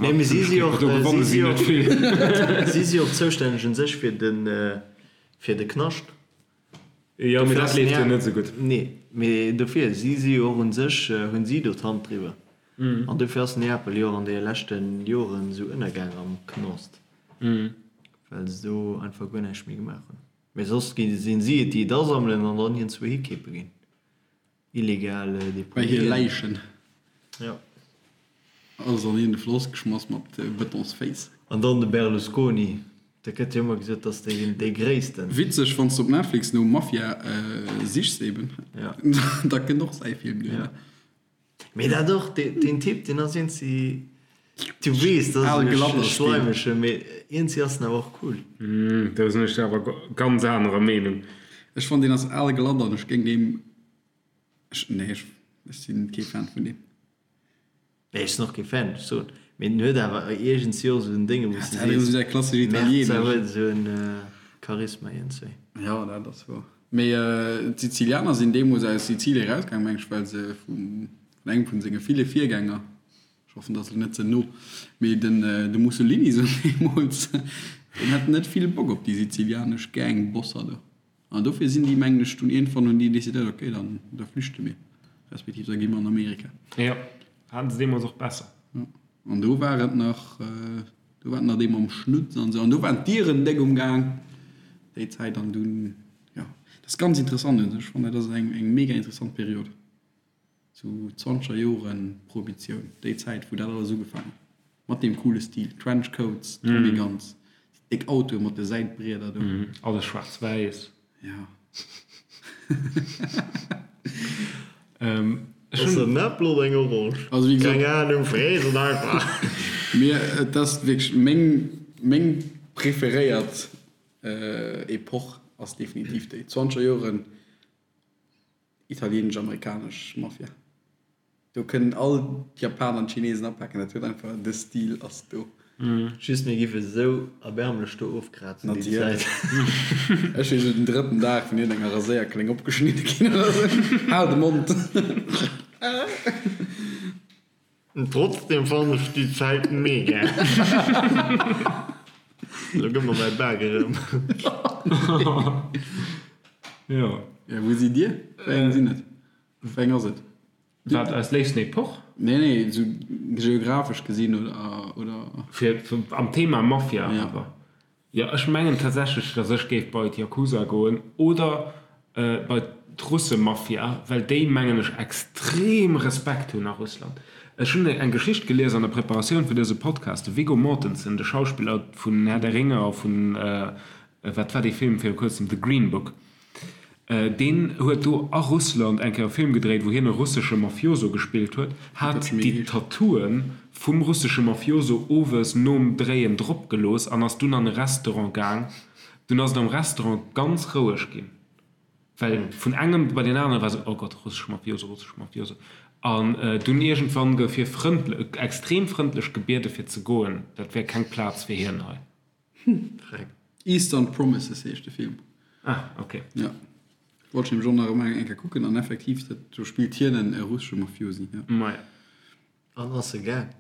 Speaker 3: Nee, mee si si och,
Speaker 1: Do gewanne
Speaker 3: si
Speaker 1: si
Speaker 3: si
Speaker 1: net
Speaker 3: och,
Speaker 1: vill.
Speaker 3: si si och zoustänneg un sech fir den, fir de Knascht.
Speaker 1: Jo, mee
Speaker 3: Dofir
Speaker 1: dat
Speaker 3: ass
Speaker 1: leeft jo
Speaker 3: Nea,
Speaker 1: net esou gutt.
Speaker 3: nee, mee dofir, si si jo och un sech, hunn si do d'Hand driwwer. An dofir ass Neapel jo och an deene leschte Joren esou ënnergaang am Knast, well se do einfach guer näischt méi gemaach hunn. Mee soss gi sinn si et, déi et asammelen an dann iergendzwou hikeepe ginn. Illegal
Speaker 2: Bei hir
Speaker 3: Deponien.
Speaker 2: Läichen.
Speaker 3: Ja.
Speaker 2: Alles an een de Floss geschmass mat Betonsféiss.
Speaker 3: An dann de Berlusconi, da gëtt jo ëmmer gesot, dass dee dee gréissten.
Speaker 2: Witzeg, wann s de op Netflix no Mafia sichs eben,
Speaker 3: Ja.
Speaker 2: da kënnt och säi Film duerno.
Speaker 3: Ja. Mee dat och, deen Typ, deen ass iergendwéi, du weess, dat
Speaker 2: Al
Speaker 3: ass
Speaker 2: glatt
Speaker 3: e
Speaker 2: ass deen.
Speaker 3: schleimege, mee iergendwéi ass en awer och cool.
Speaker 1: Do sinn ech awer ganz anerer Meenung.
Speaker 2: Ech fannen deen ass al glatt an ech géing deem, ech, nee, ech sinn kee Fan vun deem.
Speaker 3: Nee, ech sinn och kee Fan, ech soen, mee en huet awer iergendwéi och esou en Dénge, wou s de
Speaker 2: Dat ass
Speaker 3: sees,
Speaker 2: esou dat klassesch
Speaker 3: Merz
Speaker 2: italienesch.
Speaker 3: huet esou en Charisma iergendwéi.
Speaker 2: Jo, dat ass wouer. Mee d'Sizilianer sinn deemools aus Sizilie erausgaang, meng ech, well se vum, vun engem vun senge ville Virgänger, ech hoffen, dat ass elo net ze no, mee den, de Mussolini sou deemools, deen hat net vill Bock op déi sizilianesch Gangbosser do. An dofir sinn déi, mengen ech, dunn iergendwann hunn déi decidéiert, okay, dann da flüchte mir, respektiv da gi mer an Amerika.
Speaker 1: Jo, haten se deemools och besser.
Speaker 2: Jo, an do war et nach, do war et nach dee mam Schnutz an esou, an do waren d'Dieren déck um Gaang déi Zäit an dunn, jo, dat ass ganz interessant un sech, ech fannen dat ass eng eng mega interessant Period. Sou zwanzeger Joren Prohibitioun, déi Zäit wou dat alles ugefaangen huet, mat deem coole Stil, Trenchcoats, Tommy Guns, déi déck Autoe mat de Säitbrieder do.
Speaker 1: Alles schwaarz-wäiss.
Speaker 2: Ja.
Speaker 1: Ech
Speaker 3: Ass
Speaker 1: hunn.
Speaker 3: en Äppel oder eng Orange?
Speaker 2: Also wéi gesot.
Speaker 3: Keng Ahnung, frees et einfach.
Speaker 2: Mir, et ass wierklech meng, meng preferéiert Epoch ass definitiv déi zwanzeger Joren. Italienesch-amerikanesch Mafia. Do kënnen all d'Japaner an d'Chinesen apaken, dat huet einfach, de Stil ass do.
Speaker 3: Just mir giff esou erbärmlech do ofkrazen déi Zäit.
Speaker 2: Ech wier esou den drëtten Dag vun iergendenger Raséierkléng opgeschnidde ginn oder esou. Hal de Mond!
Speaker 5: Trotzdem fannen ech déi Zäit mega.
Speaker 3: Lo gëtt mer mäi Bak erëm.
Speaker 1: Jo.
Speaker 2: Ja, wou sidd Dir? Wéi eng sinn et? Wéi eng ass et?
Speaker 1: Wat, eis léifsten Epoch?
Speaker 2: Nee, nee, esou geographesch gesinn oder, oder.
Speaker 1: Fir am Thema Mafia
Speaker 2: Ja.
Speaker 1: awer. Jo, ech mengen tatsächlech, dass ech géif bei d'Yakuza goen oder bei d'Russemafia, well déi, mengen ech, extrem Respekt hunn a Russland. Ech hunn eng Geschicht gelies an der Preparatioun fir dëse Podcast, de Viggo Mortensen, de Schauspiller vun Herr der Ringe a vun, wat war dee Film viru kuerzem, The Green Book, Deen huet do a Russland eng Kéier e Film gedréit, wou hien e russesche Mafioso gespillt huet, hat déi Tattooe vum russesche Mafioso owes nom Dréien drop gelooss an ass dunn an e Restaurant gaang. Dunn ass et am Restaurant ganz roueg ginn, well vun engem bei deen anere war esou, Oh Gott, russesche Mafioso, russesche Mafioso. An dunn iergendwann gouf hie frëndlech, extrem frëndlech gebiede fir ze goen, dat wär keng Plaz fir hien hei.
Speaker 3: Freck.
Speaker 2: Eastern Promises heescht de Film.
Speaker 1: Ah, ok.
Speaker 2: Ja. Wollt ech nämlech och nach ëmmer eng Kéier kucken an effektiv, dat, do spillt hien en russesche Mafiosi, ja.
Speaker 1: Maja.
Speaker 3: An ass e gaang?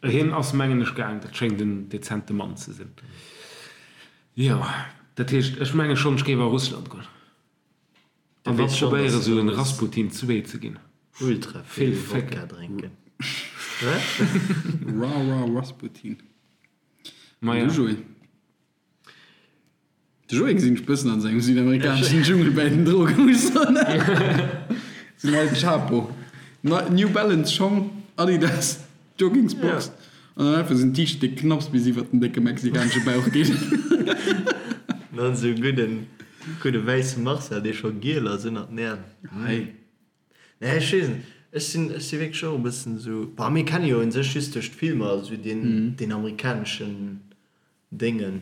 Speaker 1: Hien ass mengen ech gaang, dat schéngt en dezente Mann ze sinn. Jo, dat heescht, ech menge schonn, ech géif a Russland goen. An da probéiere sou en Rasputin 2 ze ginn.
Speaker 3: Ultra vill Wodka drénken. Wat?
Speaker 2: Ra ra Rasputin.
Speaker 1: Maja.
Speaker 2: Du Joé? De Joé gesinn ech bëssen an sengem südamerikaneschen Dschungel bäi den Drogen, muss ech soen. Sou en El Chapo. New Balance Schong, Adidas Joggingsbox an dann einfach sou en T-Shirt, dee knapps bis iwwert den décke mexikanesche Bauch geet.
Speaker 3: Dann sou e gudden, gudde wäisse Marcel, dee scho giel ass ënnert den Äerm.
Speaker 2: Hei.
Speaker 3: Nee, ech weess net. Ech sinn, ech si wierklech och e bëssen sou, bah, mir kenne jo un sech just duerch d'Filmer sou deen, deen amerikaneschen Déngen.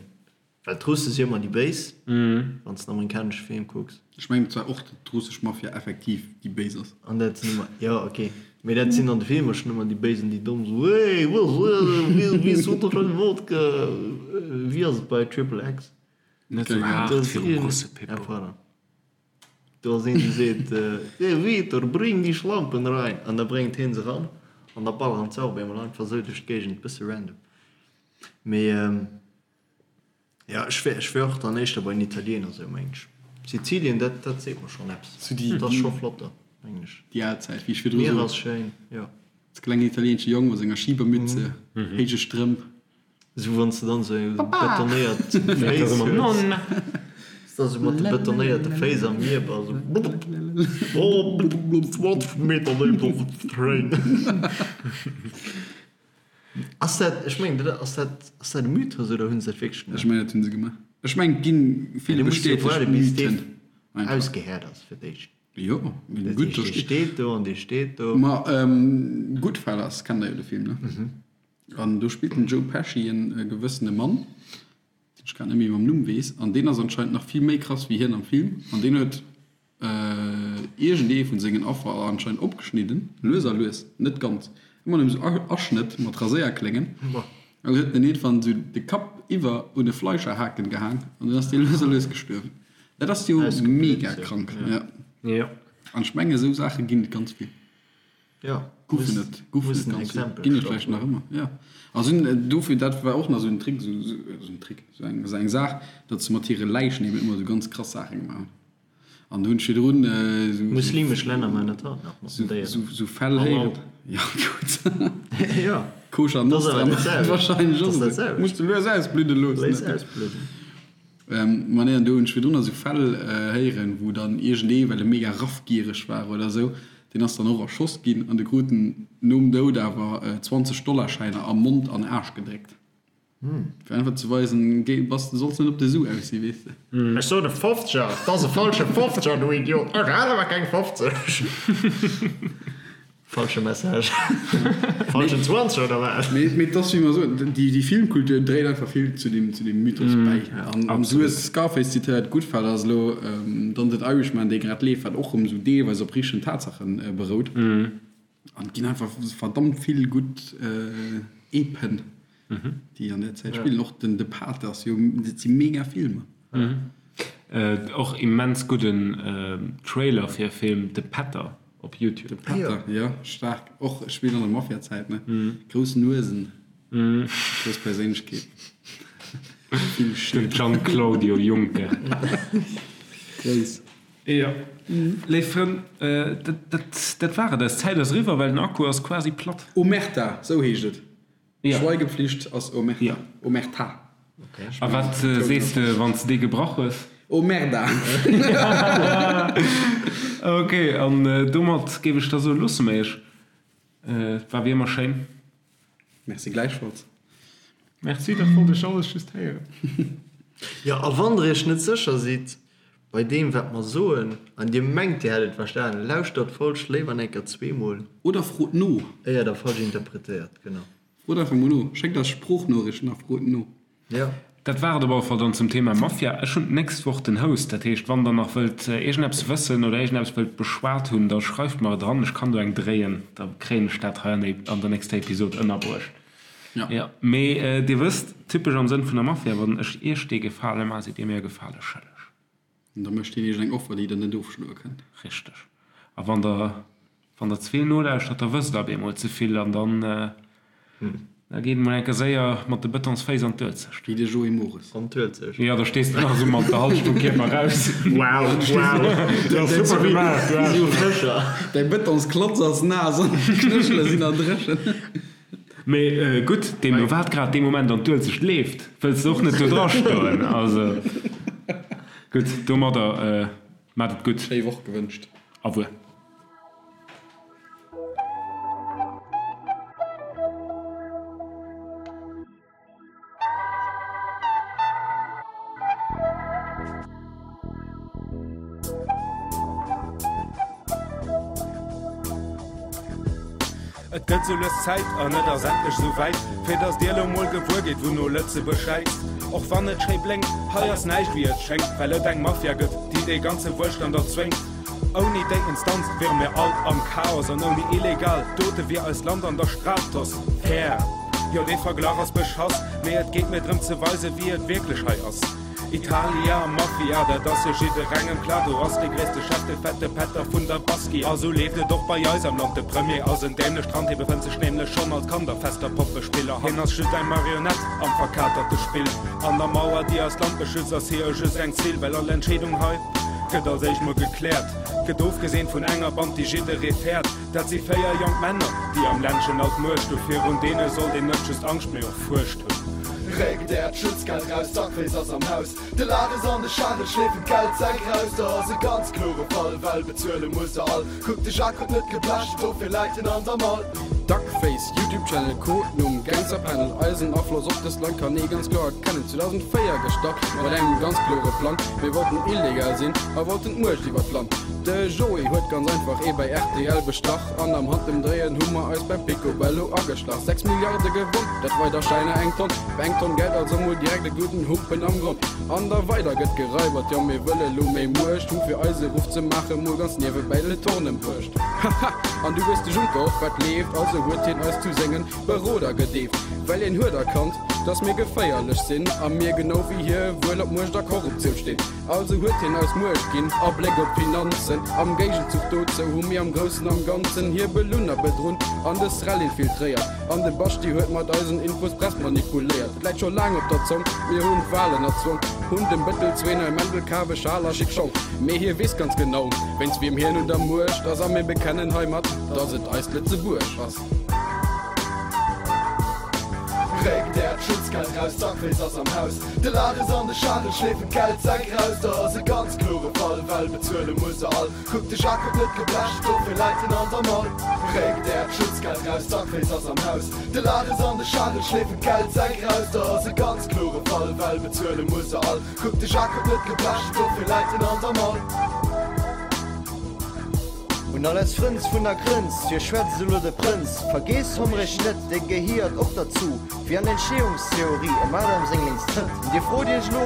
Speaker 3: Well d'Russe si ëmmer déi Béis, wann s de en amerikanesche Film kucks.
Speaker 2: Ech mengen zwar och, datt d'russesch Mafia effektiv déi Béis ass.
Speaker 3: An dat sinn ëmmer, jo ok, mee dat sinn an de Filmer schonn ëmmer déi Béis an déi Domm esou, Hey, wéi Wodka, wéi ass et bei Triple X?
Speaker 1: Net esou haart virum Russe, Pippo.
Speaker 3: Ah, pardon. Do ass een, dee seet, Hey Vitor, bring die Schlampen rein! An da bréngt hien se ran an da balleren se och op eemol einfach esou duerch d'Géigend, bësse random. Mee jo, ech wär, ech wär och dann éischter bei den Italiener sou, mengen ech. Sizilien, dat, dat seet mer schonn eppes.
Speaker 2: Sou déi,
Speaker 3: Dat ass scho flott do, mengen ech.
Speaker 2: Déi al Zäit, wéi ech virdru
Speaker 3: D'Mier
Speaker 2: sot.
Speaker 3: ass schéin, jo.
Speaker 2: Als klengen italieenesche Jong mat senger Schibermütze, héije Strëmp.
Speaker 3: Sou wann s de dann sou betonéiert Féiss hues.
Speaker 1: Nonna!
Speaker 3: S da sou mat de betonéierte Féiss am Mier bass, sou. Oh, 20 Meter déif op den Train. Ass dat, ech mengen, dat ass dat, ass dat e Mythos oder hunn se dat wierklech
Speaker 2: Ech
Speaker 3: gemaach?
Speaker 2: mengen, dat hunn se gemaach. Ech mengen, et ginn vill
Speaker 3: Du muss jo
Speaker 2: bestätegt
Speaker 3: waarde bis dee
Speaker 2: Mythen einfach.
Speaker 3: ausgehäert ass fir d'éischt.
Speaker 2: Jo, mee
Speaker 3: Dat
Speaker 2: gutt, do
Speaker 3: heescht, dee
Speaker 2: steet.
Speaker 3: steet do an dee steet do.
Speaker 2: Ma Goodfellas kennt der jo de Film, ne? An do spillt den Joe Pesci en gewëssene Mann, deen ech grad net méi mam Numm weess, an deen ass anscheinend nach vill méi krass wéi hien am Film an deen huet iergendee vun sengen Affer anscheinend opgeschnidden, lues a lues, net ganz, ëmmer nëmme sou Aschnëtt mat Raséierkléngen, an dann huet en iergendwann sou de Kapp iwwer un e Fleischerhaken gehaang an dann ass dee lues a lues gestuerwen. Dat ass jo mega krank, jo. An ech menge sou Saache ginn et ganz vill.
Speaker 3: Jo,
Speaker 2: Goufen et, goufen et ganz vill, ginn et vläicht nach ëmmer, jo. A sinn dofir, dat war och nach esou en Trick, esou en Trick, esou eng, esou eng Saach, datt se mat hire Läichen eben ëmmer esou ganz krass Saache gemaach hunn. An do hunn ech virdrun esou.
Speaker 3: Muslimesch Länner maachen dat haut nach mat den Déieren.
Speaker 2: Esou, esou Fäll héieren. Jo, gutt.
Speaker 3: Jo.
Speaker 2: Koscher Nostra wahrscheinlech och esou. Muss de lues ausbludde loossen.
Speaker 3: Léiss ausbludden.
Speaker 2: Ma nee, an do hunn ech virdrun esou Fäll héieren, wou dann iergendee, well e mega raffgiereg war oder esou, deen ass dann och erschoss ginn an de krut en nom Doud awer 20 Dollarschäiner a Mond an Aarsch gedréckt. Fir einfach ze weisen, géi, bass, du solls net op de Su aus sinn, weess de.
Speaker 5: Ech sot e Fofzeger, 't ass e falsche Fofzeger, du Idiot! Ech hat awer keng 50!
Speaker 3: Falsche Message.
Speaker 5: Falschen Zwanzeger oder wat?
Speaker 2: Mee mee et ass wéi mer soen, déi déi Filmkultur dréit einfach vill zu deem zu deem Mythos bäi. An an du hues Scarface zitéiert, Goodfellas elo, dann den Irishman dee grad leeft, wat och erëm esou deelweis op richtegen Tatsache berout. An et ginn einfach verdammt vill gutt Epen. Déi an där Zäit spillen. Och den De Pate ass jo, dat si mega Filmer.
Speaker 1: Och immens gudden Trailer fir e Film, De Pätter op Youtube.
Speaker 2: De Pätter, jo, staark. Och spillt an der Mafia-Zäit, ne? Grouss Nuesen, grouss Perséinlechkeet, vill
Speaker 1: Den
Speaker 2: Schied.
Speaker 1: Gian-Claudio Juncker.
Speaker 2: Grouss.
Speaker 1: Jo, léif Frënn, dat war et. Eis Zäit ass eriwwer, well den Akku ass quasi platt.
Speaker 2: Omerta, sou heescht et.
Speaker 1: Ja.
Speaker 2: Schweigepflicht ass Omerta.
Speaker 1: Ja.
Speaker 2: Omerta.
Speaker 1: A wat sees de, wann s de déi gebrach hues?
Speaker 2: Omerda!
Speaker 1: Ok, an domat géif ech da soen, loosse mer iech. Et war wéi ëmmer schéin.
Speaker 2: Merci gläichfalls.
Speaker 1: Merci, dat wollt ech alles just héieren.
Speaker 3: Jo, a wann der iech net sécher sidd bei deem wat mer soen, an dir mengt dir hätt et verstanen, lauschtert d'Folg léiwer enker zweemol.
Speaker 2: Oder frot no.
Speaker 3: Éier der falsch interpretéiert, genau.
Speaker 2: Frot einfach mol no. Schéckt eis Sproochnoriichten a frot no.
Speaker 3: Jo.
Speaker 1: Dat war et op alle Fall dann zum Thema Mafia. Ech hunn d'nächst Woch den Host, dat heescht wann der nach wëllt iergendeppes wëssen oder iergendeppes wëllt beschwat hunn, da schreift mer et eran, ech kann do eng dréien, da kréien ech dat hei an der nächster Episod ënnerbruecht. Jo, mee dir wësst, typesch am Sënn vun der Mafia, wann ech iech dee Gefale maachen, sidd dir mir e Gefale schëlleg.
Speaker 2: An da mécht hien iech eng Offer, déi der net ofschloe kënnt.
Speaker 1: Richteg. A wann der Wann der ze vill nolauschtert, da wësst der op eemol ze vill an dann da geet et mol eng Kéier séier mat de Betonsféiss an d'Uelzecht.
Speaker 2: Wéi de Joé Mores.
Speaker 3: An d'Uelzecht.
Speaker 1: Jo, da stees de nach esou mat der Hallschent vum Kierper raus.
Speaker 3: Wow, wow, dat ass super gemaach, du Aarsch. Esou sécher.
Speaker 2: Däi Betonsklotz ass naass an d'Knéchele sinn nach dréchen.
Speaker 1: Mee gutt, deemno wat grad dee Moment an d'Uelzecht leeft, wëlls de och net do dra stoen. Also gutt, domadder Maat et gutt.
Speaker 2: Schéi Woch gewënscht.
Speaker 1: Au revoir. Et gëtt sou lues Zäit, an et ass endlech sou wäit, fir dass dir elo mol gewuer gitt, wouno Lëtzebuerg schäizt. Och wann et schéi blénkt, hei ass näischt wéi et schéngt, well et eng Mafia gëtt, déi dee ganze Wuelstand erzwéngt. Ouni déi Instanz wiere mir all am Chaos, an ouni illegal Dote wier eist Land an der Stratosphär. Jo, dee Verglach ass beschass, mee et geet mir drëm ze weisen, wéi et wierklech hei ass. Italia, Mafia, dat ass jo jidderengem klar, do ass de gréisste Chef de fette Pätter vun der Baschi. A sou leeft et och bei eis am Land, de Premier ass en dämlecht Rand, hie befënnt sech nämlech schonn als Kand a fester Poppespiller. Hien ass just eng Marionett am verkaterte Spill. An der Mauer, déi eist Land beschützt, ass hie just eng Zill, well all Entscheedung hei gëtt als éischt mol gekläert, gëtt ofgesinn vun enger Band, déi jidderee fäert. Dat si 4 jonk Männer, déi am Ländchen all d'Muecht hu. Virun deene sollt een net just Angscht, mee och Fuercht hunn.
Speaker 6: Réckt äert Schutzgeld raus, d'Duckface ass am Haus. De Lares an de Charel schleefen d'Geldsäck raus. Da ass e ganz klore Fall, well bezuele muss se all. Kuck, de Jacques huet net geblecht, dofir läit en an der Mall.
Speaker 2: Duckface, Youtube Channel, Codenumm, Gangsterpanel, Eisen Afloss op dëst Land kann ee ganz kloer erkennen. 2004 gestart mat engem ganz klore Plang, Mir wollten illegal sinn a wollten d'Muecht iwwer d'Land. De Joé huet ganz einfach ee bei rtl bestach an am Handemdréien hu mer eis beim Picobello ageschlach. 6 Milliarde gewonn, dat weider Schäiner eng Tonn. Op eng Tonn Geld also mol direkt e gudden Humpen am Gronn. An da weider gëtt geraibert, jo mir wëlle lo méi Muecht hu fir eise Ruff ze maache mol ganz niewebäi de Torn embruecht. Haha, an du weess de Juncker och wat leeft, also huet hien eis zu sengen Beroder gedeeft, well hien huet erkannt, dass mir geféierlech sinn a mir genau wéi hie wuel op Muecht a Korruptioun stinn. Also huet hien eis Muecht ginn a Bléck op d'Finanzen. Am Géigenzuch dozou hu mir am Groussen am Ganzen hie belunn a bedrunn an de Srel infiltréiert. An de Baschti huet mat eisen Infos d'Press manipuléiert. Et läit scho laang op der Zong, mir hunn d'Walen erzwong, hunn dem Bëttel zwee nei Mäntel kaf, e Schal a schick Schong. Mee hie weess ganz genau, wéinst wiem hien un der Muecht ass a mir bekennen heimat, dass et eist Lëtzebuerg ass.
Speaker 6: Réckt äert Schutzgeld raus, d'Duckface ass am Haus. De Lares an de Charel schleefen d'Geldsäck raus. Da ass e ganz klore Fall, well bezuele muss se all. Kuck, de Jacques huet net geblecht, dofir läit en an der Mall. Réckt äert Schutzgeld raus, d'Duckface ass am Haus. De Lares an de Charel schleefen d'Geldsäck raus. Da ass e ganz klore Fall, well bezuele muss se all. Kuck, de Jacques huet net geblecht, dofir läit en an der Mall.
Speaker 7: Un all eis Frënz vun der Grënz, Fir schwätzt elo de Prënz. Vergeesst Homrech net, dee gehiert och derzu, wéi an Entstehungstheorie em Adam seng lénks Trëtt. Dir frot iech elo,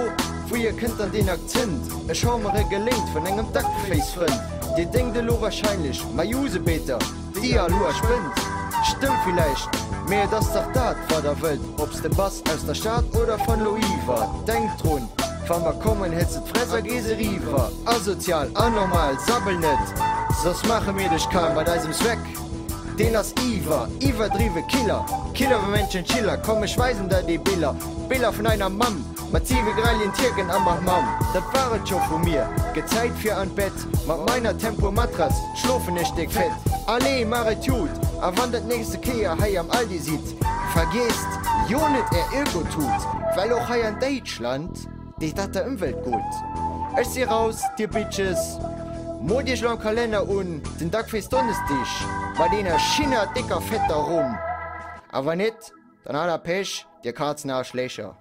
Speaker 7: Wouhier kënnt dann deen Akzent? Ech hau mer e geléint vun engem Duckface-Frënd. Dir denkt elo wahrscheinlech, Ma Jusebeter, déi al Hoer spënnt. Stëmmt villäicht, mee et ass dach dat, wat der wëllt, ob s de bass aus der Stad oder van Loiwer. Denkt drun, Wa mer kommen, hëls de d'Fress a gees eriwwer. Asozial, anormal, sabbel net, soss maache mir dech kal mat eisem Swag, deen ass iwwer, iwwerdriwwe Killer, Killer wéi Männchen Schiller, komm ech weisen der déi Biller, Biller vun einer Mamm, mat siwe grellien Tierken am Hammam. Dat war et scho vu mir, gëtt Zäit fir an d'Bett, mat meiner Tempur-Matratz schlofen ech déck fett. Allez, maach et jut, a wann der d'nächste Kéier hei am Aldi sidd, vergiesst jo net är Öko-Tut, well och hei an Déitschland Deet dat der Ëmwelt gutt? Ech si raus, dir Bitches! Moolt iech elo am Kalenner un, den Duckface Donnesdig mat eener schinner décker fetter Rumm! A wann net, dann hat der Pech, dir Kazenaarschlécher!